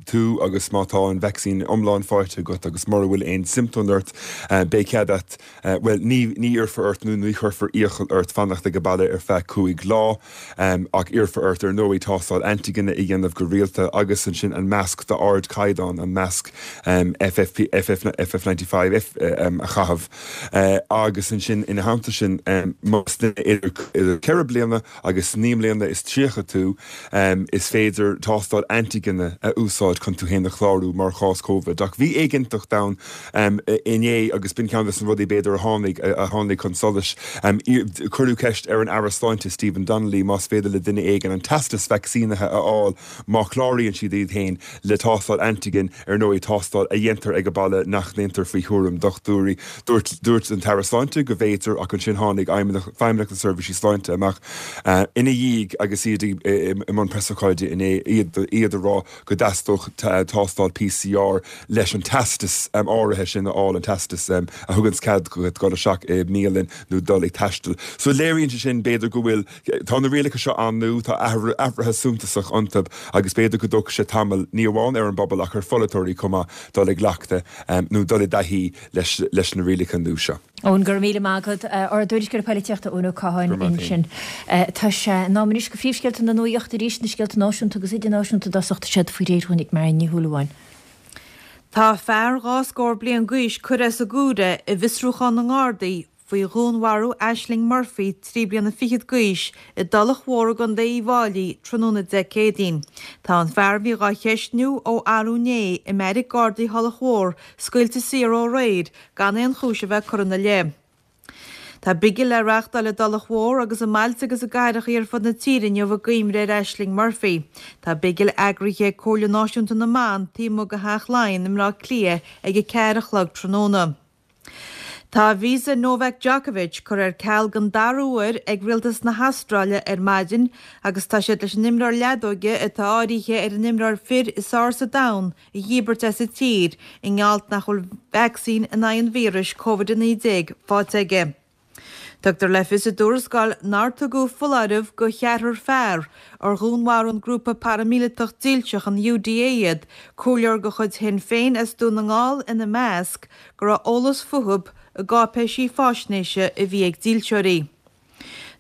tú agus má tá an vacsaín iomlán faighte agat agus mura bhfuil aon siomptóim ort, beidh cead a't, bhuel, ní, ní iarrfar ort nó ní chuirfear iachall ort fanacht ag baile ar feadh 5 lá, ach iarrfar ort, ar ndóigh, tástáil antaigine a dhéanamh go rialta agus ansin an masc d'ardchaighdeán, an masc FFP, FF, FF95, F, a chaitheamh. Agus ansin, ina theannta sin, más duine idir, idir 4 bliana agus 39 mbliana tú, is féidir tástáil antaigine a úsáid chun tú féin a chlárú mar chás Covid. Ach bhí éiginnteacht ann inné agus b'in ceann de na rudaí b'fhéidir a tháinig a tháinig chun solais. Cuireadh ceist ar an Aire Sláinte Stephen Donnelly más féidir le duine éigin an teastas vacsaínithe a fháil má chláraíonn siad iad féin le tástáil antaigin, ar ndóigh, tástáil a dhéantar ag baile nach ndéantar faoi chúram dochtúirí. Dúirt dúirt an tAire Sláinte go bhféadfaí ach ansin tháinig Feidhmeannacht na Seirbhísí Sláinte amach ina dhiaidh agus iad i mbun preasócáide inné, iad iad ag rá go dteastódh tástáil PCR leis an teastas áirithe sin a fháil, an teastas a thuganns cead duit dul isteach i mbialann nó dul ag taisteal. So léiríonn sé sin b'fhéidir go bhfuil Tá na rialacha seo an-nua, tá athruithe suntasach iontu agus b'fhéidir go dtógfaidh sé tamall, ní amháin ar an bpobal ach ar pholaiteoirí chomh maith, dul i gcleachtadh nó dul i dtaithí leis na rialacha nua seo. Eoin, go raibh míle maith agat. Ár dtuairisceoir polaitíochta Eoin Ó Catháin ansin. Tá sé in am anois do phríomhscéalta na nuachta arís, na scéalta náisiúnta agus idirnáisiúnta i dtosach, tá siad faoi réir dhúinn ag Marion Ní Shúilleabháin. Tá fear 22 scór bliain d'aois curtha as an gcomhaire i bhfiosrúchán na nGardaí faoi dhúnmharú Ashling Murphy, 23 bliana d'aois, i dTulach Mhór i gContae Uíbh Fháilí tráthnóna Dé Céadaoin. Tá an fear a bhí dhá cheistniú ó arú inné i mbeairic Gardaí Thulach Mhór scaoilte saor ó aréir gan aon chúis a bheith curtha ina leith. Tá bigil le reachtáil i dTulach Mhór agus i mbailte agus i gcathracha ar fud na tíre inniu i gcuimhne ar Ashling Murphy. Tá bigil eagraithe ag Comhairle Náisiúnta na mBan taobh amuigh de Theach Laighean i mBleá Cliath ag 4 a chlog tráthnóna. Tá visa Novak Djokovic curtha ar ceal den dara huair ag rialtas na hAstráile ar maidin agus tá siad leis an imreoir leadóige atá áirithe ar an imreoir fir is fearr sa domhan a dhíbirt as an tír i ngeall nach bhfuil vacsaín in aghaidh an víris Covid-19 faighte aige. Tugtar le fios i dtuarascáil nár tugadh foláireamh do cheathrar fear, ar dhúnmharaigh an grúpa paraimíleatach dílseach an UDA iad, comhairleoir de chuid Shinn Féin as Dún na nGall ina measc, go raibh eolas fúthu i gcáipéisí faisnéise a bhí ag dílseoirí.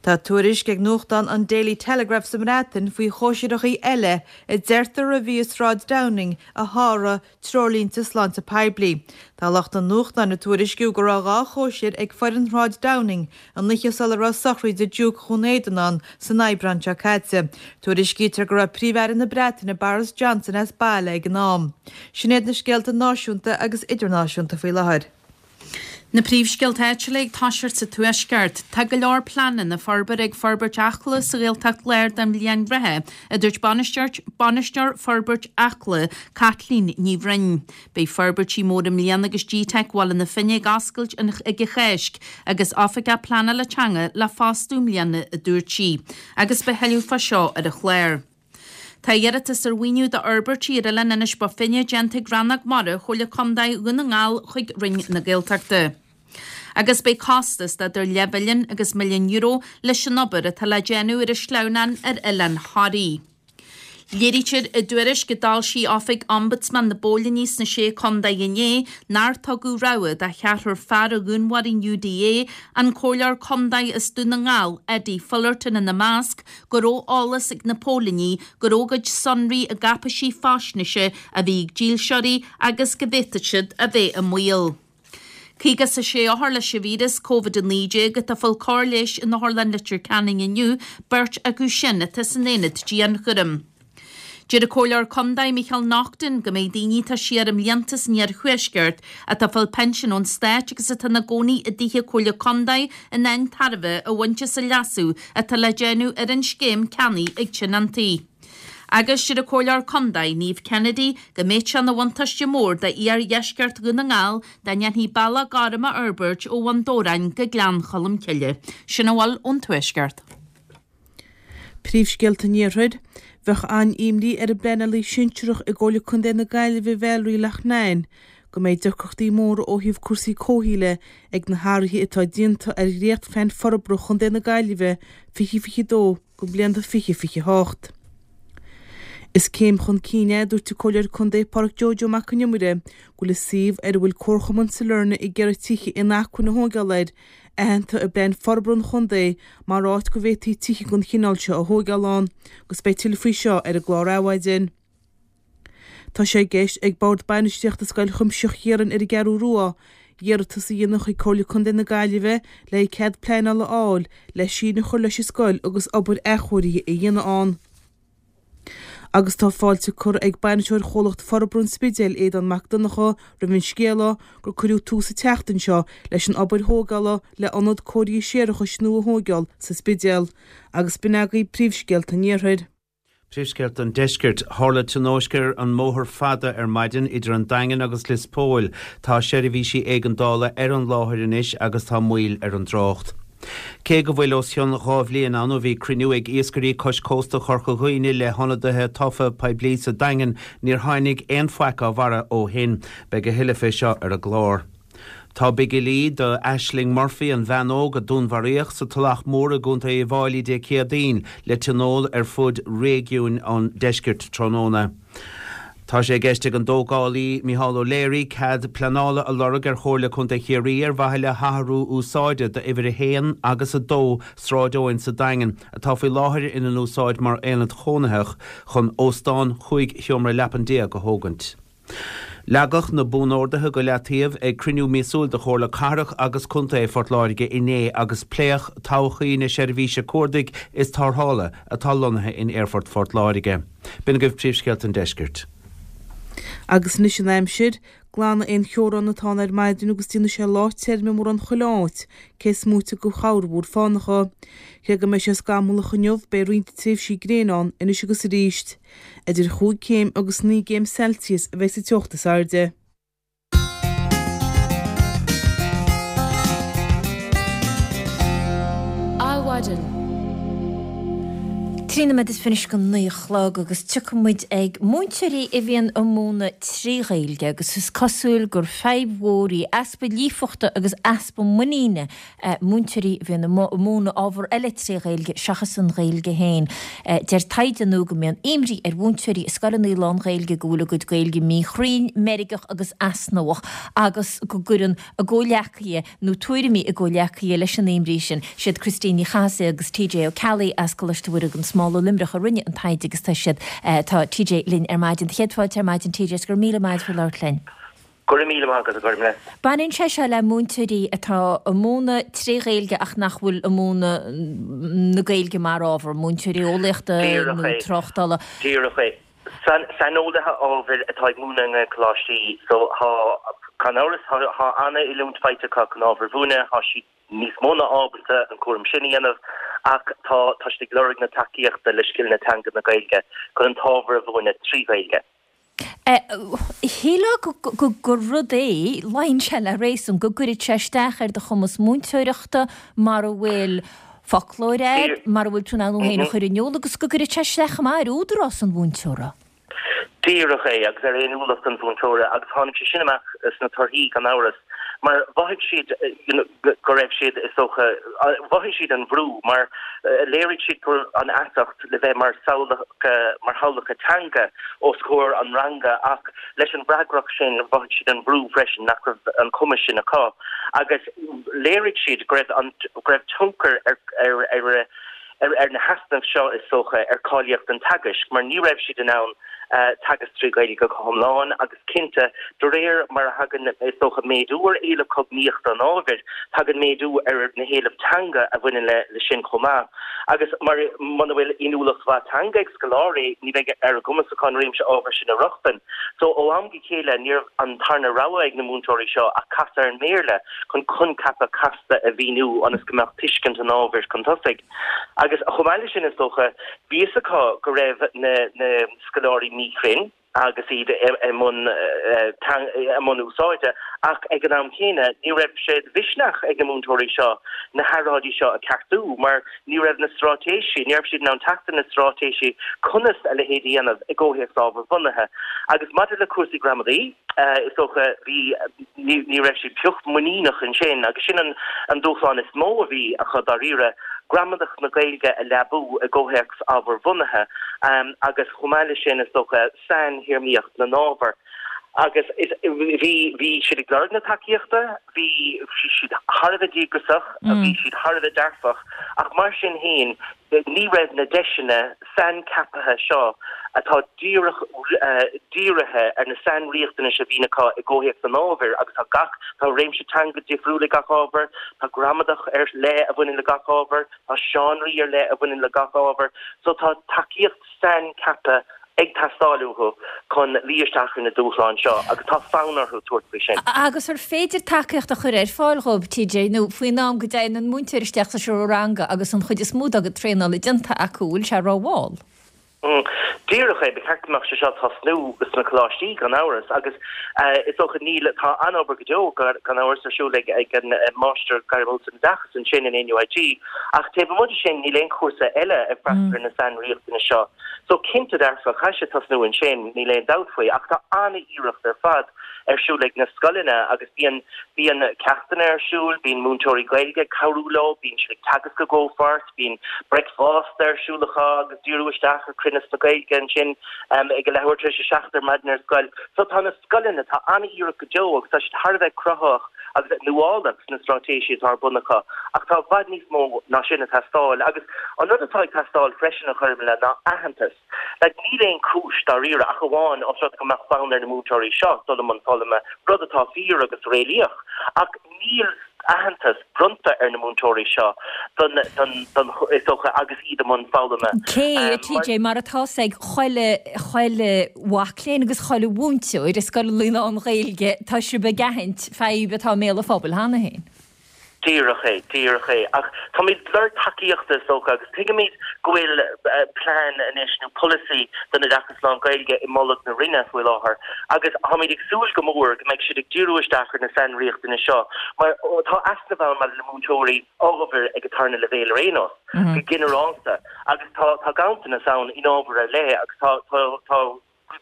Tá tuairisc ag nuachtán an Daily Telegraph sa mBreatain faoi chóisireacha eile a deirtear a bhí i Sráid Downing a sháraigh treoirlínte sláinte poiblí. Tá lucht an nuachtáin ag tuairisciú go raibh 2 chóisir ag foireann Shráid Downing an oíche sula raibh sochraid Diúc Dhún Éideann ann san Aibreán seo caite. Tuairiscítear go raibh Príomh-Aire na Breataine Boris Johnson as baile ag an am. Sin iad na scéalta náisiúnta agus idirnáisiúnta faoi láthair. Na príomhscéalta áitiúla ag toiseacht sa Tuaisceart. Tá go leor pleananna forbartha ag Forbairt Acla sa Ghaeltacht Láir don bhliain reatha, a dúirt bainisteoir Bainisteoir Forbairt Acla, Caitlín Ní Bhroin. Beidh forbairtí móra i mbliana agus GTeic Bhaile na Finne ag oscailt ag an Cháisc agus Oifigeach Pleanála Teanga le fostú i mbliana, a dúirt sí. Agus beidh thuilleadh fá seo ar an chlár. Tá iarratas ar mhaoiniú d'fhorbairtí ar oileán Inis Bó Finne déanta ag Rannóg Mara Chomhairle Contae Dhún na nGall chuig Roinn na Gaeltachta. Agus beidh costas d'idir leathmhilliún agus milliún euro leis an obair atá le déanamh ar an sleamhnán ar Oileán Thoraí. Léirítear i dtuairisc a d'fhoilsigh Oifig Ombudsman na bPóilíní sna Sé Contae inné nár tugadh rabhadh do cheathrar fear a dhúnmharaigh an UDA, an Comhairleoir Contae as Dún na nGall, Eddie Fullerton ina measc, go raibh eolas ag na póilíní go raibh a gcuid sonraí i gcáipéisí faisnéise a bhí ag dílseoirí agus go bhféadfadh siad a bheith i mbaol. 56 othar leis an víreas Covid-19 atá ag fáil cóir leighis in Otharlann Leitir Ceanainn inniu, beirt acu sin atá san aonad dianchúraim. Deir an Comhairleoir Condae Micheál Naughton go mbeidh daoine atá siar i mblianta san iarthuaisceart atá ag fáil pinsean ón stáit agus atá ina gcónaí i dtithe Comhairle Condae in ann tairbhe a bhaint as an leasú atá le déanamh ar an scéim ceannaigh ag tionóntaí. Agus deir an Comhairleoir Condae Niamh Kennedy go mbeadh sé ina bhuntáiste mór do iardheisceart Dhún na nGall dá ndéanfaí bealach gorm a fhorbairt ó Bhun Dobhráin go Gleann Cholm Cille. Sin a bhfuil ón Tuaisceart. Príomhscéalta an Iarthair. Bheadh an-imní ar an bpleanálaí sinsearach i gComhairle Contae na Gaillimhe Valerie Loughnane go mbeidh deacrachtaí móra ó thaobh cúrsaí comhshaoil ag na hathruithe atá déanta ar dhréachtphlean forbartha Chontae na Gaillimhe 2022 go blianta 2028. Is céim chun cinn é, a dúirt an Comhairleoir Contae Pádraic Joe Joe Mac Con Iomaire, go bhfuil an suíomh ar a bhfuil Comharchumann Sailearna ag iarraidh tithe inacmhainne a thóigeáil air, aitheanta i bPlean Forbartha an Chontae mar áit go bhféadfaí tithe den chineál seo a thóigeáil ann, agus beidh tuilleadh faoi seo ar an gclár Adhmhaidin. Tá sé i gceist ag Bord Bainistíochta Scoil Chuimsitheach Chiaráin ar an gCeathrú Rua iarratas a dhéanamh chuig Comhairle Contae na Gaillimhe le cead pleanála a fháil le síneadh a chur leis an scoil agus obair athchóirithe a dhéanamh ann. Agus tá fáilte curtha ag bainisteoir Chomhlacht Forbartha an Spidéil, Aodán Mac Donncha, roimh an scéala gur cuireadh tús an tseachtain seo leis an obair thógála le ionad cóirithe séarachais nua a thóigeáil sa Spidéal. Agus b'in agaibh príomhscéalta an Iarthair. Príomhscéalta an Deiscirt. Tharla tionóisc ar an mbóthar fada ar maidin idir an Daingean agus Lios Póil. Tá seirbhísí éigeandála ar an láthair anois agus tá moill ar an dtrácht. Cé go bhfuil os cionn 2 bhliain ann ó bhí cruinniú ag iascairí cois cósta Chorca Dhuibhne le hionadaithe tofa poiblí sa Daingean, níor tháinig aon faic á bharra ó shin. Beidh a thuilleadh fé seo ar an gclár. Tá bigilí do Ashling Murphy, an bhean óg a dúnmharaíodh sa Tulach Mhór i gContae Uíbh Fháilí Dé Céadaoin, le tionól ar fud réigiúin an deiscirt tráthnóna. Tá sé i gceist ag an dtógálaí Micheál O'Leary cead pleanála a lorg ar Chomhairle Contae Chiarraí ar mhaithe le hathrú úsáide d'uimhir 1 agus 2 Sráid Eoin sa Daingean, atá faoi láthair ina n-úsáid mar aonad chónaitheach, chun óstán 15 sheomra leapan a thógaint. Leagadh na buanorduithe go leataobh ag cruinniú míosúil de Chomhairle Cathrach agus Contae Phort Láirge inné agus pléadh todhchaí na seirbhíse cuardaigh is tarrthála atá lonnaithe in Aerfort Phort Láirge. B'in agaibh príomhscéalta an deiscirt. Agus anois an aimsir. Glanfaidh aon cheobhrán atá ann ar maidin agus déanfaidh sé lá tirim i mórán chuile áit, cé is móite de chorrmhúr fánacha. Cé go mbeidh sé scamallach inniu, beidh roinnt tréimhsí gréine ann anois agus arís. Idir chúig chéim agus naoi gcéim Celsius a bheidh sa teocht is airde. Adhmhaidin. 13 nóiméad is go 9 a chlog agus tiocfaidh muid ag múinteoirí a bhíonn ag múineadh trí Ghaeilge agus is cosúil gur fadhb mhór í easpa líofachta agus easpa muiníne múinteoirí a bhíonn ag múineadh ábhar eile tré Ghaeilge seachas an Ghaeilge féin. Deir taighde nua go mbíonn imní ar mhúinteoirí i scoileanna lán-Ghaeilge go bhfuil a gcuid Gaeilge míchruinn, meirgeach agus easnamhach agus go gcuireann a gcomhghleacaithe nó tuairimí a gcomhghleacaithe leis an imní sin. Siad Christine Ní Chathasaigh agus TJ Ó Ceallaigh as Coláiste Mhuire gan Smál i Luimneach a rinne an taighde agus tá siad, tá TJ linn ar maidin. Céad fáilte ar maidin TJ is go raibh míle maith agat faoi labhairt linn. Go raibh míle maith agat, a Ghormlaith. Baineann sé seo le múinteoirí atá ag múineadh tré Ghaeilge ach nach bhfuil ag múineadh na Gaeilge mar ábhar, múinteoirí eolaíochta nó tráchtála. Díreach é. Saineolaithe ábhair atá ag múineadh i nGaelcholáistí so tá, gan amhras, tá an-oiliúint faighte acu chun ábhar a mhúineadh, tá siad níos mó ná ábalta an cúram sin a dhéanamh ach tá tá siad ag lorg na tacaíochta le scileanna teanga na Gaeilge chun an t-ábhar a mhúineadh trí Ghaeilge. Shílfeá gur rud é, luíonn sé le réasún, go gcuirfeadh sé isteach ar do chumas múinteoireachta mara bhfuil foclóir agat, mara bhfuil tú in ann thú féin a chur in iúl agus go gcuirfeadh sé isteach chomh maith ar údarás an mhúinteora. Díreach é, agus ar fhéiniúlacht an mhúinteora agus tháinig sé sin amach sna torthaí gan amhras mar mhothaigh siad you know go raibh siad is dócha, mhothaigh siad an bhrú mar léirigh siad go raibh an fheasacht le bheith mar samhlacha, mar shamhlacha teanga os comhair an ranga ach leis an bhfreagracht sin mhothaigh siad an bhrú freisin nach raibh an cumas sin acu agus léirigh siad go raibh an, go raibh tionchar ar, ar, ar, ar na heasnaimh seo is dócha ar cháilíocht an teagaisc mar ní raibh siad in ann. Teagasc 3 Ghaeilge go hiomlán agus cinnte, de réir mar a thagann, is dócha, méadú ar éileamh cognaíochta an ábhair, tagann méadú ar na héilimh teanga a bhaineann le sin chomh maith. Agus mar, muna bhfuil inniúlacht mhaith teanga ag scoláirí, ní bheidh ar a gcumas acu an réimse ábhair sin a rochtain. So, ó am go chéile, ní raibh an tarna rogha ag na múinteoirí seo ach casadh ar an mBéarla chun coincheapa casta a mhíniú ionas go mbeadh tuiscint an ábhair chun tosaigh. Agus chomh maith leis sin, is dócha, bhí fhios acu go raibh na na scoláirí míchruinn agus iad i mbun i mbun úsáide, ach ag an am chéanna, ní raibh sé de mhisneach ag na múinteoirí seo na hearráidí seo a cheartú mar ní raibh na straitéisí, ní raibh siad in ann teacht ar na straitéisí conas a leithéid a dhéanamh i gcomhthéacs ábharbhunaithe. Agus maidir le cúrsaí gramadaí, is dócha, bhí, ní ní raibh siad pioc muiníneach ansin agus sin an an dúshlán is mó a bhí acu dáiríre, gramadach na Gaeilge a leabú i gcomhthéacs ábharbhunaithe agus chomh maith leis sin, is dócha, sainthéarmaíocht na n-ábhar. Agus is, bhí, bhí siad ag lorg na tacaíochta, bhí siad thar a bheith díograiseach, bhí siad thar a bheith dearfach, ach mar sin féin, ní raibh na deiseanna saincheaptha seo atá díreach dírithe ar na sainriachtanais a bhíonn acu i gcomhthéacs an ábhair agus tá gach, tá réimse teanga difriúil ag gach ábhar, tá gramadach ar leith a bhaineann le gach ábhar, tá seánraí ar leith a bhaineann le gach ábhar so tá tacaíocht saincheaptha ag teastáil uathu chun luí isteach ar na dúshláin seo agus tá fonn orthu tabhairt faoi sin. Agus ar féidir tacaíocht a chur ar fáil dhóibh, TJ, nó faoin am go dtéann an múinteoir isteach sa seomra ranga agus an chuid is mó dá gcuid traenála déanta acu, bhfuil sé rómhall? Díreach é, ba cheart go mbeadh sé seo ag tosnú sna coláistí gan amhras agus is dócha níl, tá an-obair go deo gan amhras ar siúl ag an Máistir Gairmiúil san Oideachas ansin in NUIG ach taobh amuigh de sin níl aon chúrsa eile ag freastal ar na sainriachtanais seo. So cinnte dearfa, caithfidh sé tosnú ansin, níl aon dabht faoi, ach tá an-iarracht ar fad ar siúl ag na scoileanna agus bíonn, bíonn ceachtanna ar siúl, bíonn múinteoirí Gaeilge ag cabhrú leo, bíonn siad ag teagasc i gcomhpháirt, bíonn bricfeasta ar siúl acu agus díriú isteach ar chruinneas na Gaeilge ansin ag a leathuair tar éis a 7 ar maidin ar scoil. So tá na scoileanna, tá an-iarracht go deo agus tá siad thar a bheith cruthaitheach agus nuálach sna straitéisí atá ar bun acu ach tá i bhfad níos mó ná sin ag teastáil agus an rud atá ag teastáil freisin a Ghormfhlaith ná aitheantas. Like níl aon chúis dáiríre ach amháin os rud go mbeadh fonn ar na múinteoirí seo dul i mbun foghlama, rud atá fíor agus réalaíoch ach níl aitheantas bronnta ar na múinteoirí seo don, don, don, is dócha agus iad i mbun foghlama. Cé, a TJ, mar atá 's ag chuile, chuile mhac léinn agus chuile mhúinteoir i scoil lán-Ghaeilge, tá sibh ag aithint fadhb atá i mbéal an phobail cheana féin. Díreach é, díreach é. Ach táimid ag lorg tacaíochta is dócha agus tuigimid go bhfuil plean anois nó polasaí don oideachas lán-Ghaeilge i mbolg na Roinne faoi láthair agus táimid ag súil go mór go mbeidh siad ag díriú isteach ar na sainriachtanais seo mar tá easnamh ann maidir le múinteoirí ábhair ag an tarna leibhéal ar aon nós, go ginearálta, agus tá tá ganntanas ann in ábhair ar leith agus tá tá tá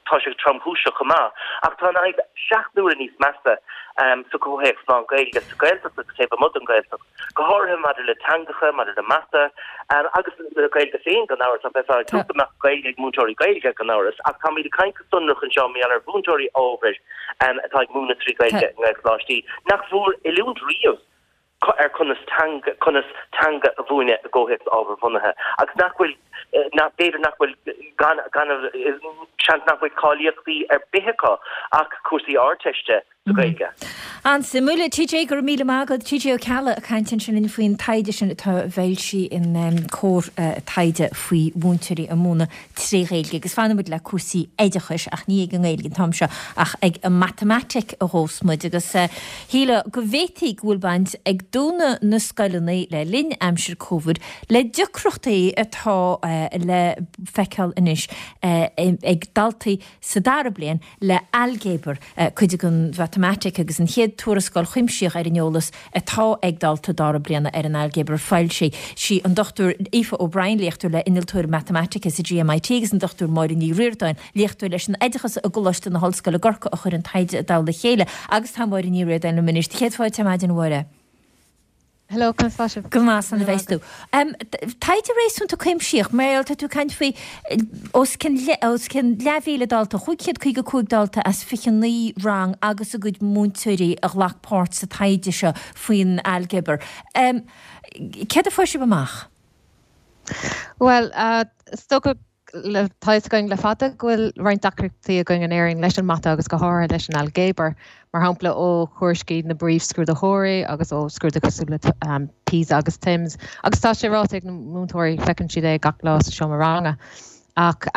Tá sé tromchúiseach chomh maith, ach tá an fhadhb 7 n-uaire níos measa sa chomhthéacs lán-Ghaeilge sa Ghaeltacht agus taobh amuigh den Ghaeltacht, go háirithe maidir le teangacha, maidir le mata agus le Gaeilge féin, gan amhras. Bheifeá ag súil go mbeadh Gaeilge ag múinteoirí Gaeilge, gan amhras, ach táimid ag caint go sonrach anseo mar gheall ar mhúinteoirí ábhair atá ag múineadh 3 Ghaeilge i nGaelcholáistí nach bhfuair oiliúint riamh. ar conas teanga, conas teanga a mhúineadh i gcomhthéacs ábharbhunaithe agus nach bhfuil, nach, b'fhéidir nach bhfuil, gan, gan, seans nach bhfuil cáilíochtaí ar bith acu ach cúrsaí Ardteiste sa Ghaeilge. An-suimiúil. TJ, go raibh míle maith agat. TJ Ó Ceallaigh ag caint ansin linn faoin taighde sin atá foilsithe in Comhar taighde faoi mhúinteoirí ag múineadh tré Ghaeilge agus fanfaidh muid le cúrsaí oideachais ach ní ag an nGaeilge an t-am seo ach ag an matamaitic a ghabhfas muid agus shílfeá go bhféadfaí go bhfuil baint ag dúnadh na scoileanna le linn aimsir Covid le deacrachtaí atá le feiceáil anois ag daltaí sa dara bliain le hailgéabar, cuid den mhatamaitic agus an chéad tuarascáil chuimsitheach ar an eolas atá ag daltaí dara bliana ar an ailgéabar foilsithe. Sí an Dr Aoife O'Brien, léachtóir le Innealtóir Matamaitice sa GMIT agus an Dr Máire Ní Ríordáin, léachtóir leis an Oideachas i gColáiste na hOllscoile i gCorcaigh a chuir an taighde i dtoll a chéile agus tá Máire Ní Ríordáin liom anois. Céad fáilte ar maidin, a Mháire. Hello, conas tá sibh? Go maith, slán a bheas tú. Taighde réasúnta cuimsitheach, mar gheall, tá tú ag caint faoi os cionn os cionn leathmhíle dalta, 555 dalta as 29 rang agus a gcuid múinteoirí a ghlac páirt sa taighde seo faoin ailgéabar. Céard a fuair sibh amach? Bhuel, is dócha. tá fhios againn le fada go bhfuil roinnt deacrachtaí againn in Éirinn leis an mata agus go háirithe leis an ailgéabar, mar shampla ó thuairiscí na bpríomhscrúdaitheoirí agus ó scrúduithe cosúil le PISA agus TIMSS agus tá sé ráite ag na múinteoirí, feiceann siad é gach lá sa seomra ranga. Ach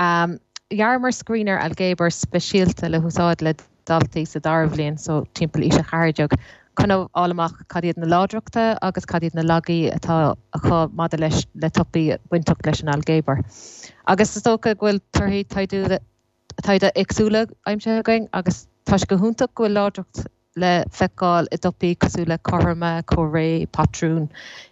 dhearamar screener ailgéabair speisialta le húsáid le daltaí sa dara bhliain, so timpeall aois a 14, chun a fháil amach cad iad na láidreachta agus cad iad na laigí atá acu maidir leis le topaicí bainteach leis an ailgéabar. Agus is dócha go bhfuil torthaí taighde éagsúla aimsithe againn agus tá sé go hiontach go bhfuil láidreacht le feiceáil i dtopaicí cosúil le cothroime, comhréidh, patrún,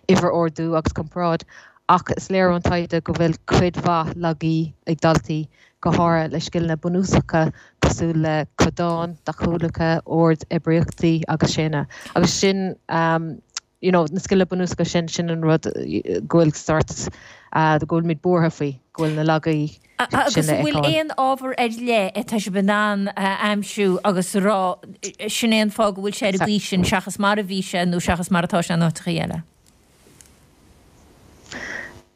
uimhir-ordú agus comparáid ach is léir ón taighde go bhfuil cuid mhaith laigí ag daltaí go háirithe le scileanna bunúsacha cosúil le codáin, deachúlacha, ord oibríochtaí agus séanna. Agus sin, you know, na scileanna bunúsacha sin, sin an rud go bhfuil sórt, go bhfuilimid buartha faoi, go bhfuil na laigí sin le Agus an bhfuil feiceáil. aon ábhar ar leith atá sibh in ann a aimsiú agus a rá, sin é an fáth go bhfuil sé ar an gcaoi sin seachas mar a bhí sé nó seachas mar atá sé in áiteachaí eile?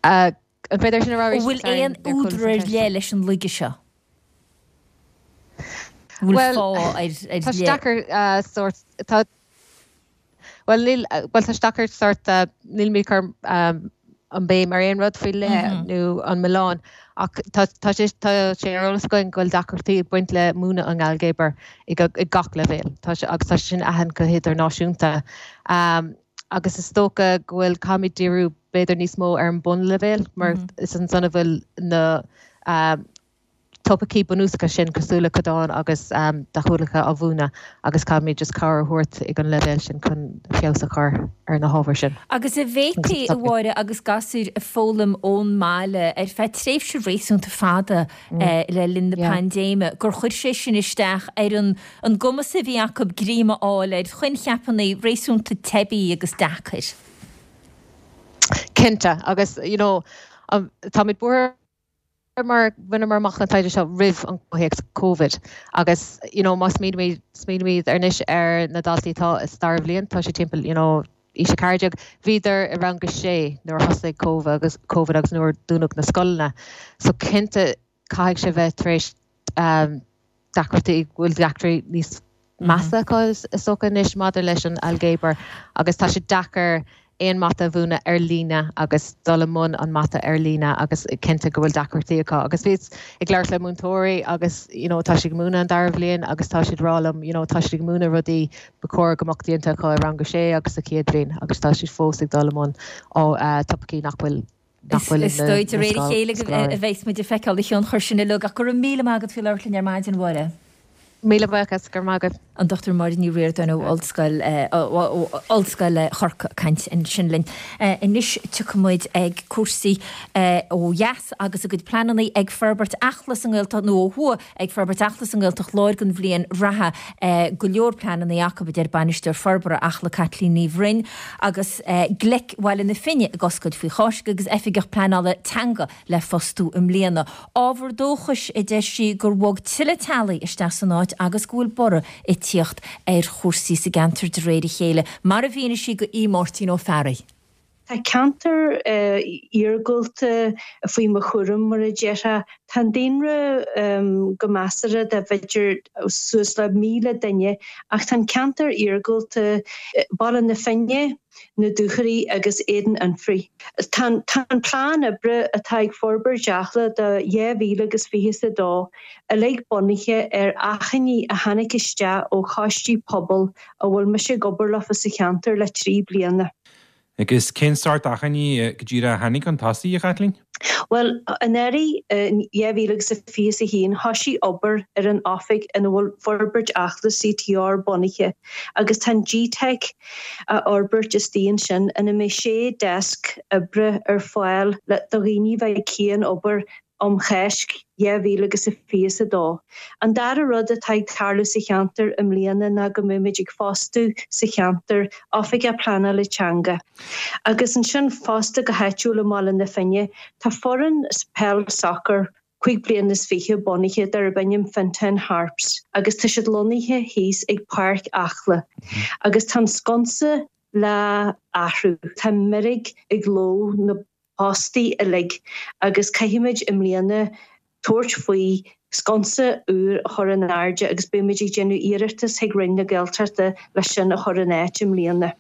An féidir sin a rá An arís? bhfuil Sorry, aon níor chuala údar an ar cheist. leith leis an laige seo? An bhfuil Bhuel, fáth ar ar tá sé leith? deacair sórt, tá, bhuel níl, bhuel tá sé deacair sórt, nílimid ag cur an béim ar aon rud faoi leith nó an milleán ach tá, tá sé, tá sé ar eolas againn go bhfuil deacrachtaí ag baint le múineadh an ailgéabair ag gach leibhéal. Tá sé, agus tá sé sin aitheanta go hidirnáisiúnta. Agus is dócha go bhfuil, caithfimid díriú b'fhéidir níos mó ar an bunleibhéal mar is ansan a bhfuil na topaicí bunúsacha sin cosúil le codáin agus deachúlacha á mhúineadh agus caithfimid just cabhair a thabhairt ag an leibhéal sin chun feabhas a chur ar na hábhair sin. Agus an bhféadfaí, a Mháire, agus gasúir ag foghlaim ón mbaile ar feadh tréimhse réasúnta fada le linn na paindéime, gur chuir sé sin isteach ar an an gcumas a bhí acu greim a fháil ar choincheapanna réasúnta teibí agus deacair. Cinnte, agus you know táimid buartha mar bhaineamar amach an taighde seo roimh an gcomhthéacs Covid agus you know má smaoinímid smaoinímid anois ar na daltaí atá sa dara bhliain, tá siad timpeall you know aois 14, bhíodar i rang a sé nuair a thosaigh Covid agus Covid agus nuair a dúnadh na scoileanna. So cinnte caithfidh sé bheith tar éis deacrachtaí, go bhfuil deacrachtaí níos measa acu is dócha anois maidir leis an ailgéabar agus tá sé deacair aon mata a mhúineadh ar líne agus dul i mbun an mata ar líne agus cinnte go bhfuil deacrachtaí acu. Agus bhíos ag labhairt le múinteoirí agus you know tá siad ag múineadh an dara bhliain agus tá siad ag rá liom you know tá siad ag múineadh rudaí ba chóir go mbeadh déanta acu i rang a sé agus sa chéad bhliain agus tá siad fós ag dul i mbun topaicí nach bhfuil nach bhfuil Is dóigh de réir a chéile a bheas muid ag feiceáil an tionchar sin uilig ach go raibh míle maith agat faoi labhairt linn ar maidin, a Mháire. Míle buíochas, go raibh maith agat. An Dr Máire Ní Ríordáin ó Ollscoil Ollscoil Chorcaí ag caint ansin linn. Anois tiocfaidh muid ag cúrsaí ó dheas agus a gcuid pleananna ag forbairt Acla sa nGaeltacht nó ó thuaidh ag forbairt Acla sa nGaeltacht Láir don bhliain reatha. Go leor pleananna acu, a deir Bainisteoir Forbartha Acla Caitlín Ní Bhroin agus Gleic Bhaile na Finne ag oscailt faoi Cháisc agus Oifigeach Pleanála Teanga le fostú i mbliana. Ábhar dóchais, a deir sí, gur bhog tuilleadh teaghlaigh isteach san áit agus go bhfuil borradh ag tíocht ar chúrsaí sa gceantar de réir a chéile, mar a mhínigh sí do Aodh Máirtín Ó Fearraigh. Tá ceantar iargúlta faoi mo chúram, mar a déarfá. Tá an daonra go measartha de b'fhéidir suas le 1,000 duine ach tá an ceantar iargúlta, Baile na Finne, na Dúchoraidh agus Éadan Anfraidh. Tá an plean oibre atá ag Forbairt Acla do 2022 uilig bunaithe ar achainí a tháinig isteach ó choistí pobail a bhfuil mise ag obair leofa sa cheantar le 3 bliana. Agus cén sórt achainí go díreach a tháinig chun tosaigh, a Chaitlín? Bhuel, anuraidh, in 2021, thoisigh obair ar an oifig ina bhfuil Forbairt Acla CTR bunaithe agus tá an GTeic á fhorbairt istigh ansin ina mbeidh sé deasc oibre ar fáil do dhaoine a bheidh ag cian-obair um Cháisc 2022. An dara rud atá ag tarlú sa cheantar i mbliana ná go mbeimid ag fostú sa cheantar Oifigeach Pleanála Teanga. Agus ansin fosta go háitiúil i mBaile na Finne tá foireann peil sacair 25 bliana bunaithe darb ainm Fintown Harps agus tá siad lonnaithe thíos ag Páirc Acla agus tá an sconsa le athrú. Tá meirg ag ló na postaí uilig agus caithfimid i mbliana. tabhairt faoi sconsa úr a chur in airde agus beidh muid ag déanamh iarratas chuig Roinn na Gaeltachta leis sin a chur in áit i mbliana.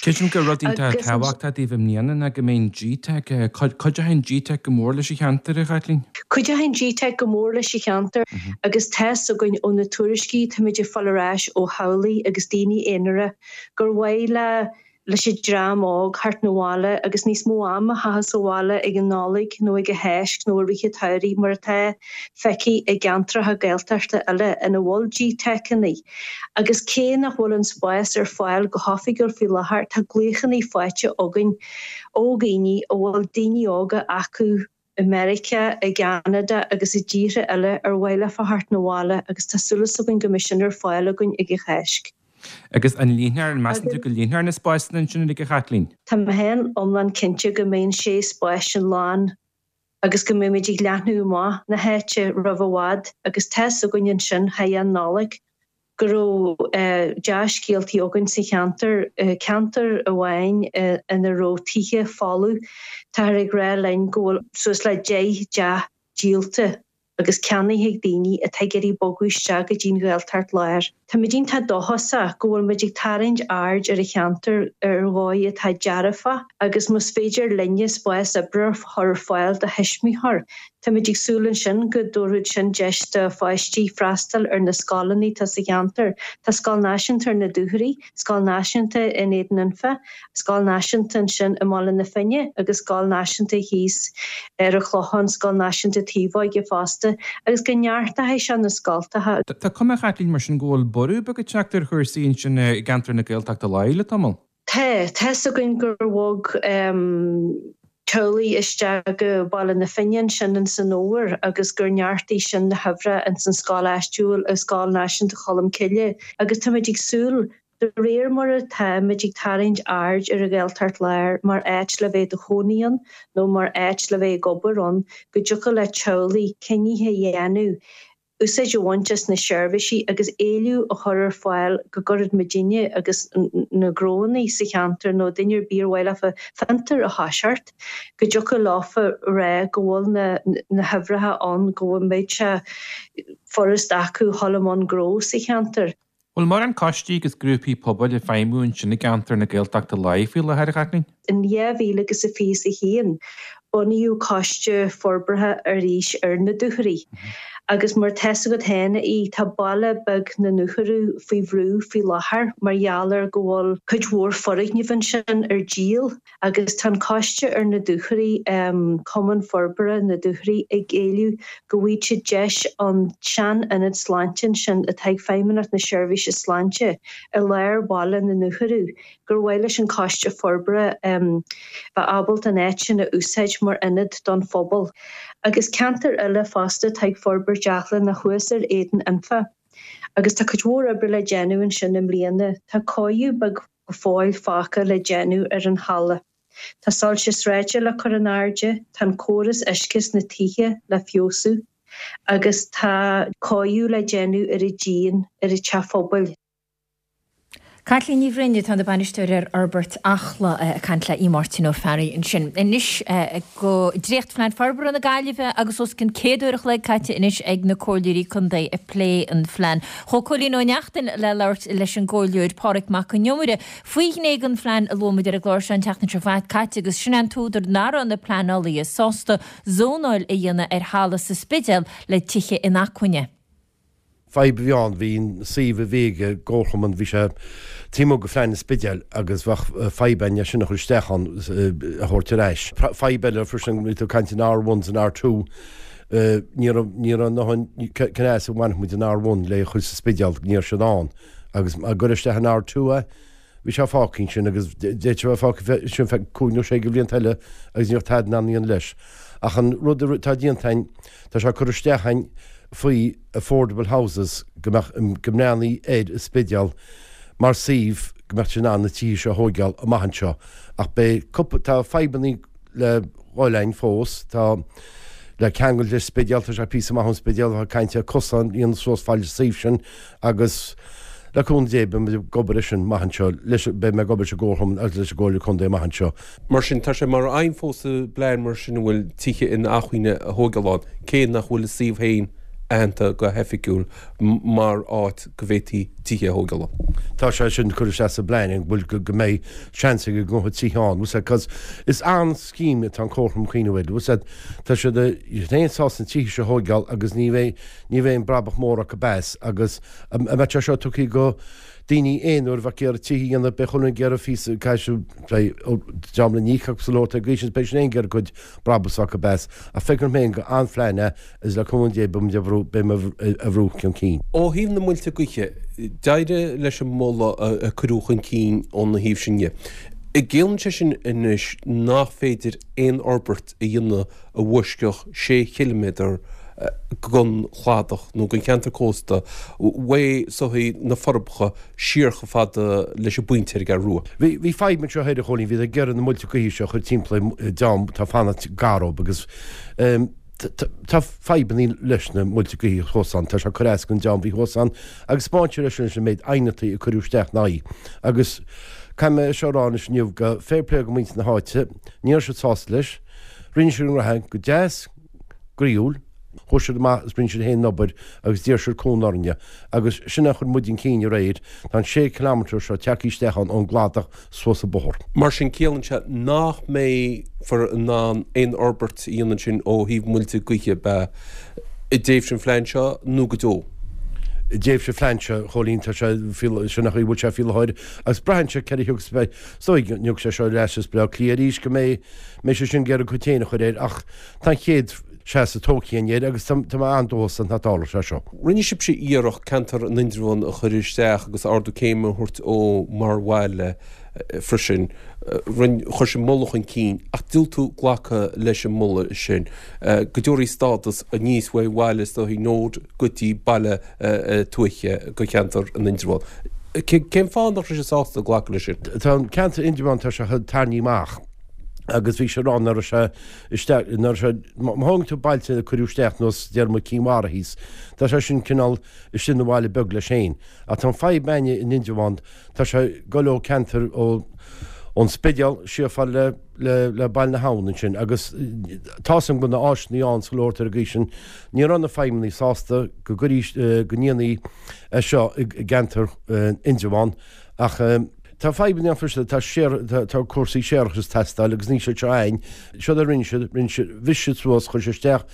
Creidim gur rud iontach tábhachtach daoibh i mbliana ná go mbeidh an GTeic, cuideoidh an GTeic go mór leis an cheantar, a Chaitlín? Cuideoidh an GTeic go mór leis an cheantar agus tá's againn ó na tuairiscí táimid ag fáil ar ais ó theaghlaigh agus daoine aonair gur mhaith le leis an dream óg theacht 'na bhaile agus níos mó ama a chaitheamh sa bhaile ag an Nollaig nó ag an Cháisc nó i rith an tsamhraidh mar atá feicthe i gceantracha Gaeltachta eile ina bhfuil GTeiceanna. Agus cé nach bhfuil an spás ar fáil go hoifigiúil faoi láthair tá glaochanna faighte againn ó dhaoine a bhfuil daoine óga acu i Meiriceá, i gCeanada agus i dtíortha eile ar mhaith leofa theacht 'na bhaile agus tá súil againn go mbeidh sin ar fáil againn ag an Cháisc. Agus an líonfar, an measann tú go líonfar na spásanna ansin uilig, a Chaitlín? Tá mé féin iomlán cinnte go mbeidh an sé spás sin lán agus go mbeimid ag leathnú amach na háite roimh i bhfad agus tá's againn ansin thar an Nollaig go raibh dea-scéaltaí againn sa cheantar, ceantar amháin ina raibh tithe folamh, táthar ag rá linn go bhfuil suas le 10 dteach díolta agus ceannaithe ag daoine atá ag iarraidh bogadh isteach go dtí an Ghaeltacht Láir. Táimid iontach dóchasach go bhfuil muid ag tarraingt aird ar an cheantar ar dhóigh atá dearfach agus más féidir linne spás oibre a chur ar fáil do thuismitheoir, Táimid ag súil ansin go dtabharfadh sin deis do pháistí freastal ar na scoileanna atá sa cheantar. Tá Scoil Náisiúnta ar na Dúchoraidh, Scoil Náisiúnta in Éadan Anfa, Scoil Náisiúnta ansin i mBaile na Finne agus Scoil Náisiúnta thíos ar an Chlochán, Scoil Náisiúnta Taobhóige fosta, agus go neartóidh sé na scoltacha. Tá cuma, a Chaitlín, mar sin go bhfuil borradh beag ag teacht ar chúrsaí ansin i gceantar na Gaeltachta Láir le tamall. Tá. Tá's againn gur bhog teaghlaigh isteach go Baile na Finne ansin ins an fhómhar agus gur neartaigh sin na huimhreacha ins an scoil áitiúil, i Scoil Náisiúnta Cholmcille agus táimid ag súil, de réir mar atáimid ag tarraingt aird ar an Ghaeltacht Láir mar áit le bheith i do chónaí ann nó mar áit le bheith ag obair ann, go dtiocfadh le teaghlaigh cinnithe a dhéanamh úsáid a bhaint as na seirbhísí agus éileamh a chur ar fáil go gcuirfeadh muidinne agus na gnóanna sa cheantar nó duine ar bith ar mhaith leofa fiontar a thoiseacht, go dtiocfadh leofa rá go bhfuil na na huimhreacha ann, go mbeadh sé furast acu dhul i mbun gnó sa cheantar. Bhfuil mórán coistí agus grúpaí pobail ag feidhmiú ansin i gceantar na Gaeltachta Láir faoi láthair, a Chaitlín? In 2021, bunaíodh Coiste Forbartha arís ar na Dúchoraidh agus mar tá's agat féin, a Aoidh, tá baile beag na nDúchoradh faoi bhrú faoi láthair mar gheall ar go bhfuil cuid mhór foirgneamh ansin ar díol. Agus tá an coiste ar na Dúchoraidh, Cumann Forbartha na Dúchoraidh, ag éileamh go bhfaighidh siad deis an sean-ionad sláinte ansin atá ag Feidhmeannacht na Seirbhíse Sláinte i lár bhaile na nDúchoradh, gur mhaith leis an Coiste Forbartha bheith ábalta an áit sin a úsáid mar ionad don phobal. Agus ceantar eile fosta atá ag forbairt Eachla ná thuas ar Éadan Anfa. Agus tá cuid mhór oibre le déanamh ansin i mbliana. Tá cóiriú beag go fóill fágtha le déanamh ar an halla. Tá soilse sráide le cur in airde, tá an córas uisce sna tithe le feabhsú agus tá cóiriú le déanamh ar an díon ar an teach phobail. Caitlín Ní Bhroin atá ina bainisteoir ar Fhorbairt Acla ag caint le Aodh Máirtín Ó Fearraigh ansin. Anois go Dréachtphlean Forbartha na Gaillimhe agus os cionn 100 uair a chloig caite anois ag na Comhairleoirí Contae ag plé an phlean. Chuaigh Cóilín Ó Neachtain le labhairt leis an gComhairleoir Pádraig Mac Con Iomaire faoi ghné den phlean a luaigh muid ar an gclár seo an tseachtain seo caite agus sin é an t-údar nach raibh na pleanálaithe sásta zónáil a dhéanamh ar thalamh sa Spidéal le tithe inacmhainne. Fadhb a bhí ann, bhí an suíomh a bhí ag an gcomharchumann, bhí sé taobh amuigh de phlean an Spidéil agus bheadh fadhb ann é sin a chur isteach ann, a thabhairt ar ais. Fadhb eile freisin, bhí tú ag caint an R1 's an R2, Ní raibh, ní raibh a ndóthain, cén as a bhainfeadh muid an R1 le a chur sa Spidéal, ní raibh siad ann. Agus má cuireadh isteach an R2 é, bhí sé fágtha ansin agus d'fhéadfadh sé a bheith fágtha ansin feadh cúig nó sé de bhlianta eile agus ní bheadh tada in ann a dhéanamh leis. Ach an rud atá déanta againn, tá sé curtha isteach againn faoi affordable houses go mbeadh, go mbreathnaí ar an Spidéal mar suíomh go mbeadh siad in ann na tithe seo a thóigeáil amach anseo. Ach beidh cúpla, tá fadhbannaí le dhul ann fós. Tá le ceangal leis Spidéal, tá sé píosa maith ón Spidéal, tá caint ar cosán a dhéanamh suas fad leis an suíomh sin agus Le cúnamh Dé, beidh muid ag obair air sin amach anseo, leis, beidh mé ag obair leis an gComharchumann agus leis an gComhairle Contae amach anseo. Mar sin, tá sé mar aidhm fós sa bplean mar sin an bhfuil tithe inacmhainne a thóigeáil ann, cé nach bhfuil an suíomh féin aitheanta go hoifigiúil mar áit go bhféadfaí tithe a thóigeáil ann. Tá sé sin curtha isteach sa bplean an bhfuil go mbeidh seans ag an gcomhairle tithe ann, bhfuil 's a'd, cos is an-scéim atá an Comharchumann cuimhneamh air, bhfuil 's a'd, tá siad féin sásta na tithe seo a thóigeáil agus ní bheidh, ní bheidh aon brabach mór acu as agus an mbeadh sé seo tugtha go daoine aonair a bheadh ag iarraidh tithe a dhéanamh, beidh chuile dhuine ag iarraidh phíosa, caithfidh siad, dream le n-íoc acu sa lór ag aois, beidh siad féin ag iarraidh cuid brabús acu as. Ach feicim féin gur an-phlean é agus le cúnamh Dé beidh muid á bhrú, beidh mé á bhrú chun cinn. Ó thaobh na muilte gaoithe, d'éirigh leis an moladh a cuireadh chun cinn óna thaobh sin dhe. An gciallaíonn sé sin anois nach féidir aon fhorbairt a dhéanamh a bhaisceadh sé chiliméadar den chladach nó den cheantar cósta uaidh soithí na Forbacha siar chomh fada leis an bpointe ar an gCeathrú Rua. Bhí fadhb anseo thoir, a Chóilín, bhíodar ag iarraidh na muilte gaoithe seo a chur timpeall ar dream atá ag fanacht gar dóibh agus tá fadhbanna leis na muilte gaoithe thuas ann, tá sé ag cur as don dream a bhí thuas ann agus spáin sé leis leis an méid aighneachtaí a cuireadh isteach ina aghaidh agus caithfidh mé seo a rá anois inniu go fair play go muintir na háite, ní raibh siad sásta leis. Rinne siad a ngraithe go deas, groíúil. Chuaigh siad amach is rinne siad féin an obair agus d'iarr siad cúnamh orainne. Agus sin a chuir muid chun cinn aréir. Tá an sé kilometre seo tagtha isteach ann ón gcladach suas an bóthar. Mar sin, ciallaíonn sé nach mbeifear in ann aon fhorbairt a dhéanamh ansin ó thaobh muilte gaoithe, ab ea, i dtréimhse an phlean seo nó go deo? I dtréimhse an phlean seo, a Chóilín, tá sé, sin an chaoi a bhfuil sé faoi láthair agus braitheann sé céard a thiocfas, beidh, is dóigh go dtiocfaidh sé seo ar ais as Baile Átha Cliath arís go mbeidh, mbeidh sé sin ag iarraidh a chuid féin a chur air ach tá an chéad seasamh tógtha againn air agus tá mé an-dóchasach nach dtarlóidh sé seo. Rinne sibhse iarracht ceantar an Indreabháin a chur isteach agus ardú céime a thabhairt dó mar bhaile freisin. Rinne, chuir sibh moladh chun cinn ach diúltú glacadh leis an moladh sin go dtabharfaí stádas aníos uaidh bhaile is dóichí nód go dtí baile tuaithe go cheantar an Indreabháin. Cén fáth nach raibh sibh sásta glacadh leis sin? Tá an ceantar Indreabhán, tá sé tarraingthe amach agus bhí sé ag rá nach raibh sé isteach, nach raibh sé, má thógann tú bailte a cuireadh isteach nós déarfaidh muid Cinn Mhara thíos, tá sé sin cineál istigh ina bhaile beag leis féin. Ach tá an fadhb againne in Indreabhán, tá sé ag goil ó ceantar ó ón Spidéal siar fad le le le Baile na hAbhann ansin agus tá's agam go bhfuil na áiseanna ann sa leor ar an gcaoi sin. Ní raibh na feidhmeannaigh sásta go gcuirí go ndéanfaí é seo i gceantar Indreabhán ach tá fadhbanna ann freisin, tá séar tá cúrsaí séarachais ag teastáil agus níl siad seo againn. Seod a rinne siad, rinne siad, bhris siad suas, chuir siad isteach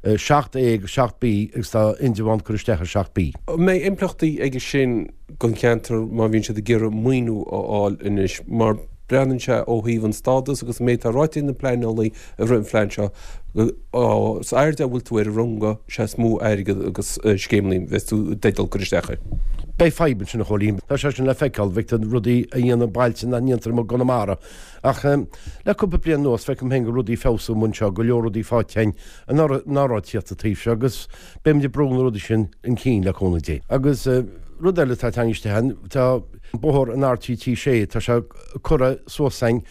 7A agus 7B agus tá Indreabhán curtha isteach ar 7B. An mbeidh impleachtaí aige sin don cheantar má bhíonn siad ag iarraidh maoiniú a fháil anois mar breathnaíonn sé ó thaobh an stádas agus an méid atá ráite ag na pleanálaí i rith an phlean seo, is airde a bhfuil tú ar an runga, is ea is mó airgead agus scéimeanna a bheas tú i dteideal cur isteach air. Beidh fadhb ansin a Chóilín. Tá sé sin le feiceáil, feictear rudaí a dhéanamh bailte nach ndéantar amuigh i gConamara. Ach le cúpla bliain anuas feicim féin go rudaí ag feabhsú amuigh anseo, go leor rudaí faighte againn nach raibh ag tíocht an taobh seo agus beimid ag brú na rudaí sin chun cinn le cúnamh Dé. Agus rud eile atá tagtha isteach ann, tá bóthar an RTT 6, tá sé curtha suas againn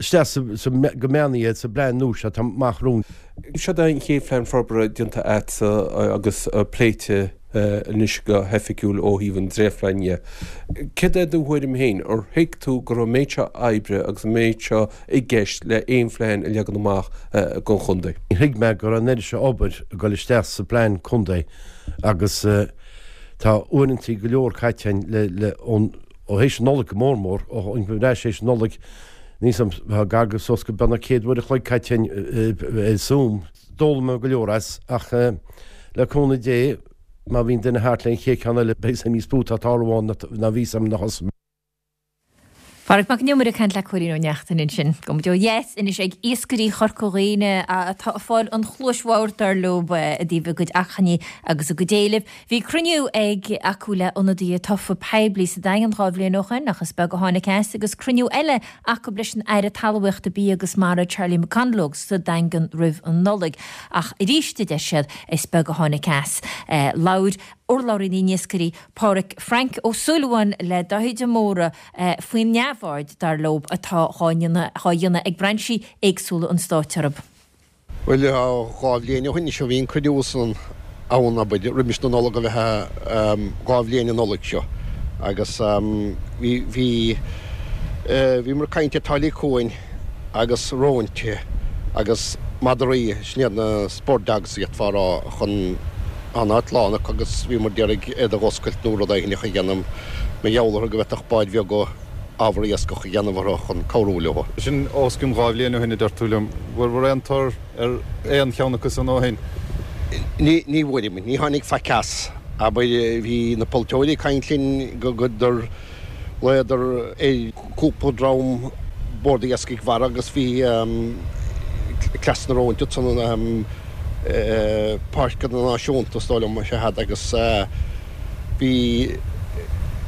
isteach sa, go meánaithe sa bplean nua seo atá amach romhainn. Seo é an chéad phlean forbartha déanta agatsa agus pléite anois go hoifigiúil ó thaobh an dréachtphlean dhe. Céard é do thuairim féin? Ar thuig tú go raibh an méid seo oibre agus an méid seo i gceist le aon phlean a leagan amach don chontae? Thuig mé go raibh an oiread seo obair ag dul isteach sa bplean contae agus tá uaireantaí go leor caite againn le, le, ón, ó théis an Nollaig go mór mór, ó tháinig muid ar ais théis an Nollaig, níl 's a'm, tá gar go suas go beagnach 100 uair a chloig caite againn ar Zoom. D'fhoghlaim mé go leor as ach le cúnamh Dé má bhíonn duine thart le an chéad ceann eile beidh 's a'm níos mó atá ag tarlú ann ná bhí 's a'm nuair a thosaigh mé. Pádraig Mac Con Iomaire ag caint le Cóilín Ó Neachtain ansin. Gabhfaidh muid ó dheas anois ag iascairí Chorca Dhuibhne atá ag fáil an chluais bhodhar dar leo i dtaobh a gcuid achainí agus a gcuid éilimh. Bhí cruinniú ag acu le ionadaithe tofa poiblí sa Daingean 2 bhliain ó shoin ach is beag a tháinig as agus cruinniú eile acu leis an Aire Talmhaíochta, Bia agus Mara Charlie McConalogue sa Daingean roimh an Nollaig ach arís a deir siad is beag a tháinig as. Labhair urlabhraí na n-iascairí Pádhraic Frank Ó Súilleabháin le Dáithí de Mórdha faoin neamhaird, dar leo, atá dhá dhéanamh ag brainsí éagsúla an stáit orthu. Bhuel, 2 bhliain ó shin anois a bhí an cruinniú san ann, abair, roimis na Nollag a bheith 2 bhliain an Nollaig seo. Agus bhí, bhí, bhíomar ag caint ar táillí cuain agus róinte agus madraí, sin iad na spur dogs d'fhéadfá a rá, chun, tá an áit lán acu agus bhíomar d'iarraidh iad a dh'oscailt nó rud éigin a dhéanamh mar gheall orthu go bhféadfadh báid bheaga ábhar iascach a dhéanamh orthu chun cabhrú leo. Sin os cionn 2 bhliain ó shin a deir tú liom. Bhfuair aon tor ar aon cheann acu san ó shin? Ní bhfuair, ní tháinig faic as. Abair, bhí na polaiteoirí ag caint linn go gur ghlaodar ar cúpla dream Bord Iascaigh Mhara agus bhí Cleas na Róinte ansan, Páirceanna Náisiúnta is dóigh liom is ea iad agus bhí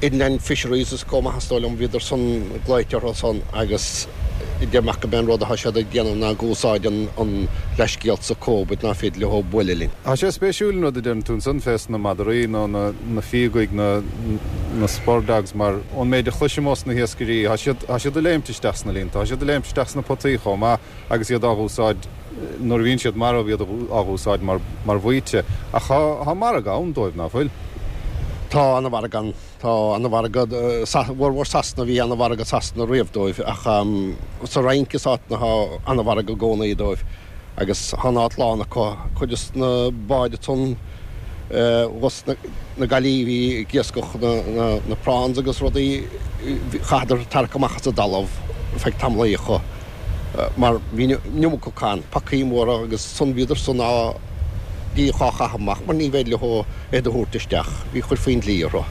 Inland Fisheries is chomh maith is dóigh liom, bhíodar san glaoite orthu san agus deir mé gurb é an rud atá siad ag déanamh ná ag úsáid an leithscéal sa Covid ná féidir leo buaileadh linn. Tá sé spéisiúil an rud a deireann tú ansan fés na madraí nó na fíogaigh, na na spur dogs mar ón méid a chloisim ós na hiascairí tá siad tá siad ag léimt isteach sna líonta, tá siad ag léimt isteach sna potaí chomh maith agus iad á dh'úsáid nuair a bhíonn siad marbh iad á dh'úsáid mar mar bhaoite. Ach tá tá margadh ann dóibh, ná fuil? Tá ana-mhargadh ann. Tá ana-mhargadh, sa bhformhór Sasana, bhí ana-mhargadh Sasana riamh dóibh ach sa Fhrainc is áiteanna tá ana-mhargadh i gcónaí dóibh agus tá an áit lán acu. Cuid des na báid ansan thuas na Gaillimhe a bhí ag iascach na prawns agus rudaí, chaitheadar tarrac amach as an dtalamh feadh tamallaí acu. mar bhí an iomarca acu ann, pacaí móra agus san bhíodar san á d'iarraidh á chaitheamh amach mar ní bhféidir leo iad a thabhairt isteach, bhí chuirfí an dlí orthu.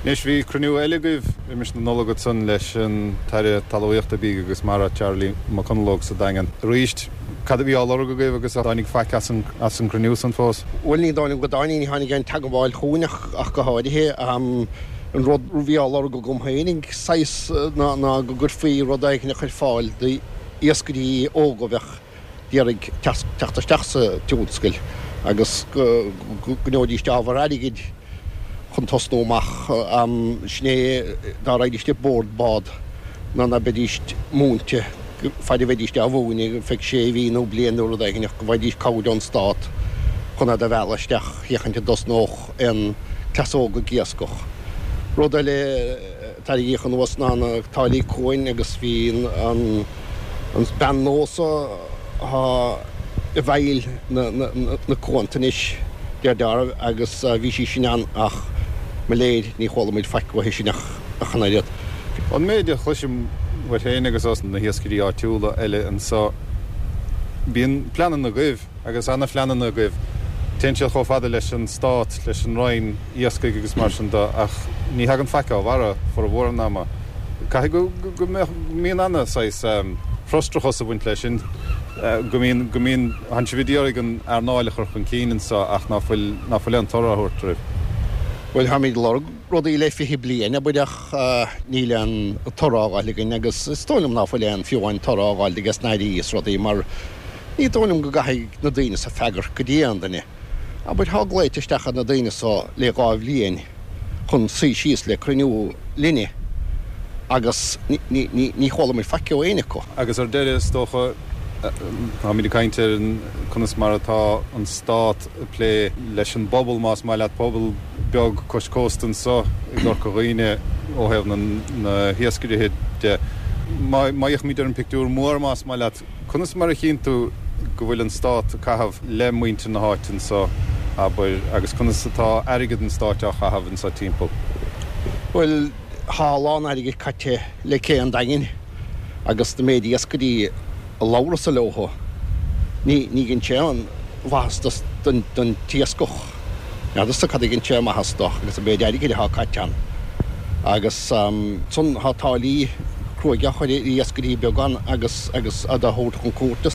Anois bhí cruinniú eile agaibh roimis na Nollag ansan leis an tAire Talmhaíochta, Bídh agus Mara, Charlie McConalogue sa Daingean. Arís, cad a bhí á lorg agaibh agus ar tháinig faic as an gcruinniú san fós? Bhuel ní dóigh liom go dtáinig, ní tháinig aon teagmháil chugainn ach go háirithe. An rud a bhí á lorg agam féinig, saghas, ná go gcuirfí rud éigin ar fáil d'iascairí óga a bheadh d'iarraidh teacht isteach sa tionscal agus go ngeobhaidís ábhar airgid chun tosnú amach. Sin é dá raghaidís ar bord bád ná ná beidís múinte faid a bheidís á mhúineadh ar feadh sé mhí nó bliain nó rud éigin ach go bhfaighidís cabhair ón stát chun iad a mhealladh isteach féachaint an dtosnódh aon cleas óg ag iascach. Rud eile a tarraingíodh anuas ná na táillí cuain agus bhí an bean nua so atá i bhfeighil na cuanta anois, deir dealramh, agus bhí sí sin ann ach mo léir ní chuala muid faic uaithi sin ach an oiread. An méid a chloisim uait féin agus os na hiascairí áitiúla eile anso, bíonn pleananna agaibh. Agus ana-phleananna agaibh. Téann siad chomh fada leis an Stát, leis an Roinn Iascaigh agus mar sin de, ach ní thagann faic á bharra formhór an ama. Caithfidh go mbíonn ana saghas frustrachas ag baint leis sin, go mbíonn, go mbíonn, tánn sibh ag iarraidh an earnáil a chur chun cinn anseo ach ná fuil, ná fuil aon toradh á thabhairt oraibh. Bhuel, táimid ag lorg rudaí le 20 bliain, abair, ach níl aon toradh á fháil againn agus is dóigh liom ná fuil aon, fiú amháin toradh á fháil ages na hairí is rudaí mar, Ní dóigh liom go gcaithfidh na daoine so freagairt go dtí aon duine. Abair, thá glaoite isteach ar na daoine so le 2 bhliain chun suí síos le cruinniú linne agus ní chuala muid faic ó éinne acu. Agus ar deireadh, is dócha, táimid ag caint ar conas mar atá an Stát ag plé leis an bpobal, más maith leat, pobal beag cois cósta anso i gCorca Dhuibhne ó thaobh na hiascairithe de. Má fhéachaimid ar an bpictiúr mór, más maith leat, Conas mar a chíonn tú go bhfuil an Stát ag caitheamh le muintir na háite anso, abair, agus conas atá airgead an Stáit á chaitheamh anso timpeall? Bhuel, thá a lán airgid caite le cé an Daingin agus na méid iascairí a labhrasa leothu, ní dhein sé aon mhaitheas don t-iascach. N'fheadarsa cad a dhein sé maitheas do agus an méid airgid athá caite ann. Agus ansan thá táillí cruaidh á chur ar iascairí beaga ann agus agus iad á thabhairt chun cúirte.